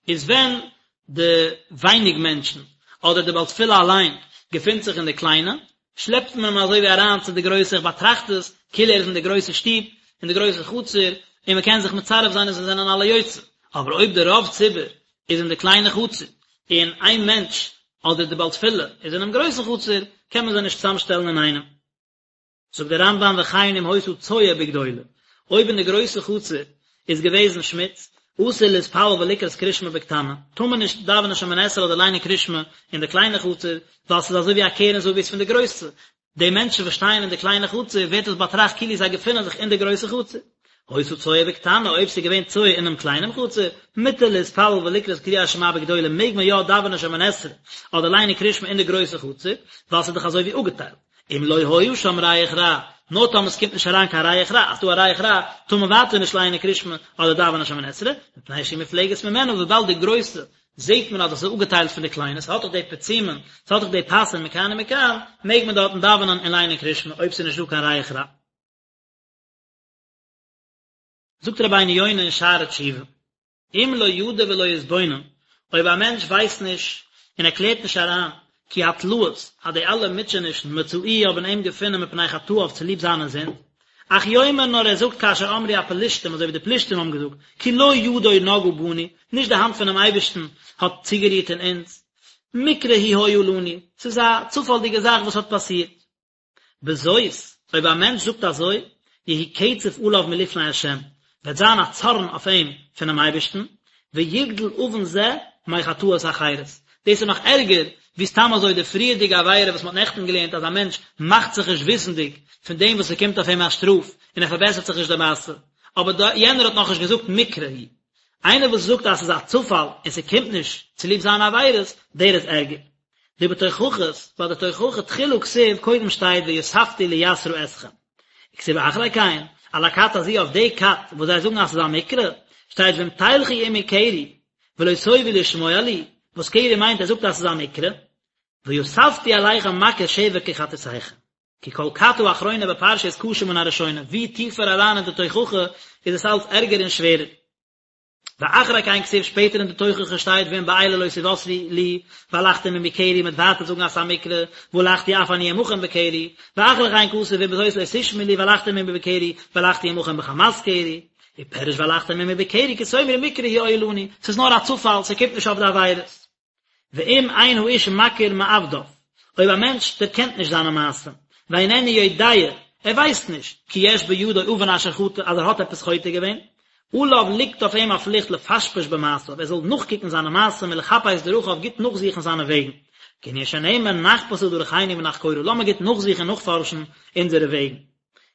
איז ווען די ווייניג מענטשן, אדער די בעל תפילה אליין, געפינט זיך אין די קליינע, שלעפט מען אים אזוי ווי אריין צו די גרויסע, איך באטראכט עס כאילו ער איז אין די גרויסע שטוב, אין די גרויסע חצר, און מען קען זיך מצרף זיין און זיי זענען אלע יוצא. אבער אויב די רוב ציבור איז אין די קליינע חצר, און איין מענטש, אדער די בעל תפילה, איז אינעם גרויסן חצר, קען מען זיי נישט צוזאמשטעלן אינאיינעם. זאגט דער רמב"ם וכן אם היתה צואה בגדולה, אויב אין די גרויסע חצר איז געוועזן שמוץ, אסור להתפלל ולקרות קריאת שמע בקטנה, טאר מען נישט דאווענען שמונה עשרה אדער ליינען קריאת שמע אין די קליינע חצר, ווייל ס'איז אזוי ווי א קרן זווית פון די גרויסע, די מענטשן וואס שטייען אין די קליינע חצר ווערט עס באטראכט כאילו זיי געפינען זיך אין די גרויסע חצר. היתה צואה בקטנה, אויב ס'איז געווען צואה אינעם קליינעם חצר, מותר להתפלל ולקרות קריאת שמע בגדולה מעג מען יא דאווענען שמונה עשרה אדער ליינען קריאת שמע אין די גרויסע חצר, ווייל ס'איז דאך אזוי ווי אפגעטיילט. אם לא היה שם ריח רע, נאר טאמער ס'קומט נישט אריין קיין ריח רע, אז ס'דא א ריח רע, טאר מען ווייטער נישט לייענען קריאת שמע אדער דאווענען שמונה עשרה, מפני שהיא מופלגת ממנה, וויבאלד די גרויסע זעט מען אז עס איז אפגעטיילט פון די קליינע, ס'האט דאך די פצימין, ס'האט דאך די פסין מכאן ומכאן, מעג מען דארטן דאווענען און לייענען קריאת שמע אויב ס'איז נישט דא קיין ריח רע. זאגט רבינו יונה אין שערי תשובה, אם לא ידע ולא יתבונן, אויב א מענטש ווייסט נישט און ער קלערט נישט אריין, כי התלאות, אז די אלע מוטשענישן מצאוהו האבן אים געפונען מפני חטאיו צוליב זיינע זינד, אך יאמר נאר ער זאגט כאשר אמרו הפלשתים אזוי ווי די פלשתים האבן געזאגט, כי לא ידו נגעה בנו, נישט די האנט פונעם אייבערשטן האט צוגערירט אין אונז, מקרה הוא היה לנו, ס'איז א צופאלדיגע זאך וואס האט פאסירט. בזאת, אויב א מענטש זאגט אזוי, יהי קצף עליו מלפני השם, וועט זיין א צארן אויף אים פונעם אייבערשטן, ויגדל עוון זה מחטאות אחרות. דאס איז נאך ערגער ווי סתם אזוי די פריערדיגע עבירה וואס מען האט נעכטן געלערנט אז א מענטש מאכט זיך נישט וויסנדיג פון דעם וואס ס'קומט אויף אים א שטראף און ער פארבעסערט זיך נישט די מעשה, אבער יענער האט נאכנישט געזאגט מקרה הוא. איינער וואס זאגט אז ס'איז א צופאל און ס'קומט נישט צוליב זיינע עבירות, דער איז ערגער. דבתוכחות, ביי די תוכחה תחילה כתיב קודם שטייט ויספתי ליסרה אתכם. וכתיב אחרי כן, על הכת הזו אויף די כת וואס זיי זאגן אז ס'איז א מקרה, שטייט ואם תלכו עמי קרי, ולא תאבו לשמוע לי, וואס קרי מיינט ער זאגט אז ס'איז א מקרה, ויספתי עליכם מכות שבע כחטאתיכם. כי כל כת האחרונה בפרשה איז קשה מן הראשונה, ווי טיפער אריין אין די תוכחה איז עס אלץ ערגער און שווערער. ואחרי כן כתיב שפעטער אין די תוכחה שטייט ואם באלה לא תוסרו לי והלכתם עמי קרי מ'וועט ווייטער זאגן אז ס'איז א מקרה והלכתי אף אני עמכם בקרי ואחרי כן כתוב ואם בזאת לא תשמעו לי והלכתם עמי בקרי והלכתי עמכם בחמת קרי ופירש והלכתם עמי בקרי כי תאמרו מקרה הוא היה לנו ס'איז נאר א צופאל ס'קומט נישט אויף די עבירות. ואם אין האיש מכיר מעבדיו, אויב א מענטש דערקענט נישט זיינע מעשים, ואיננו יודע, ער ווייסט נישט, כי יש בידו עוון אשר חטא, אז ער האט עפעס חוטא געווען, עליו ליגט אויף אים א פליכט לפשפש במעשיו, ער זאל נאכקוקן זיינע מעשים ולחפש דרכיו, גוט נאכזוכן זיינע וועגן. כענין שנאמר נחפשה דרכינו ונחקורה, לאמיר גוט נאכזוכן און נאכפארשן אונזערע וועגן.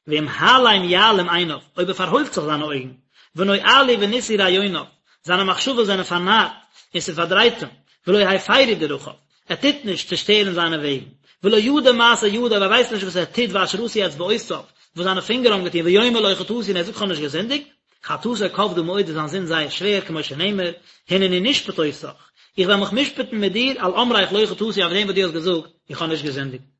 ואם העלם יעלים עיניו, אויב ער פארהוילט זיך זיינע אויגן, ונואלו ונשאו רעיוניו, זיינע מחשבות זענען פארנארט, און ס'פארדרייט אים, ולא הפרו דרכיו, ער טוט נישט צושטערן זיינע וועגן, ולא ידע מעשה ידיו, ער ווייסט נישט וואס ער טוט ואשר עשו אצבעותיו, וואס זיינע פינגער האבן געטון, ויאמר לא חטאתי און ער זאגט כ'האב נישט געזינדיגט. חטאתו כבדה מאוד איז זיין זינד זייער שווער, כמו שנאמר, הנני נשפט אותך, איך וועל מיך משפט'ן מיט דיר, על אמרך לא חטאתי אויף דעם וואס דו האסט געזאגט, איך האב נישט געזינדיגט.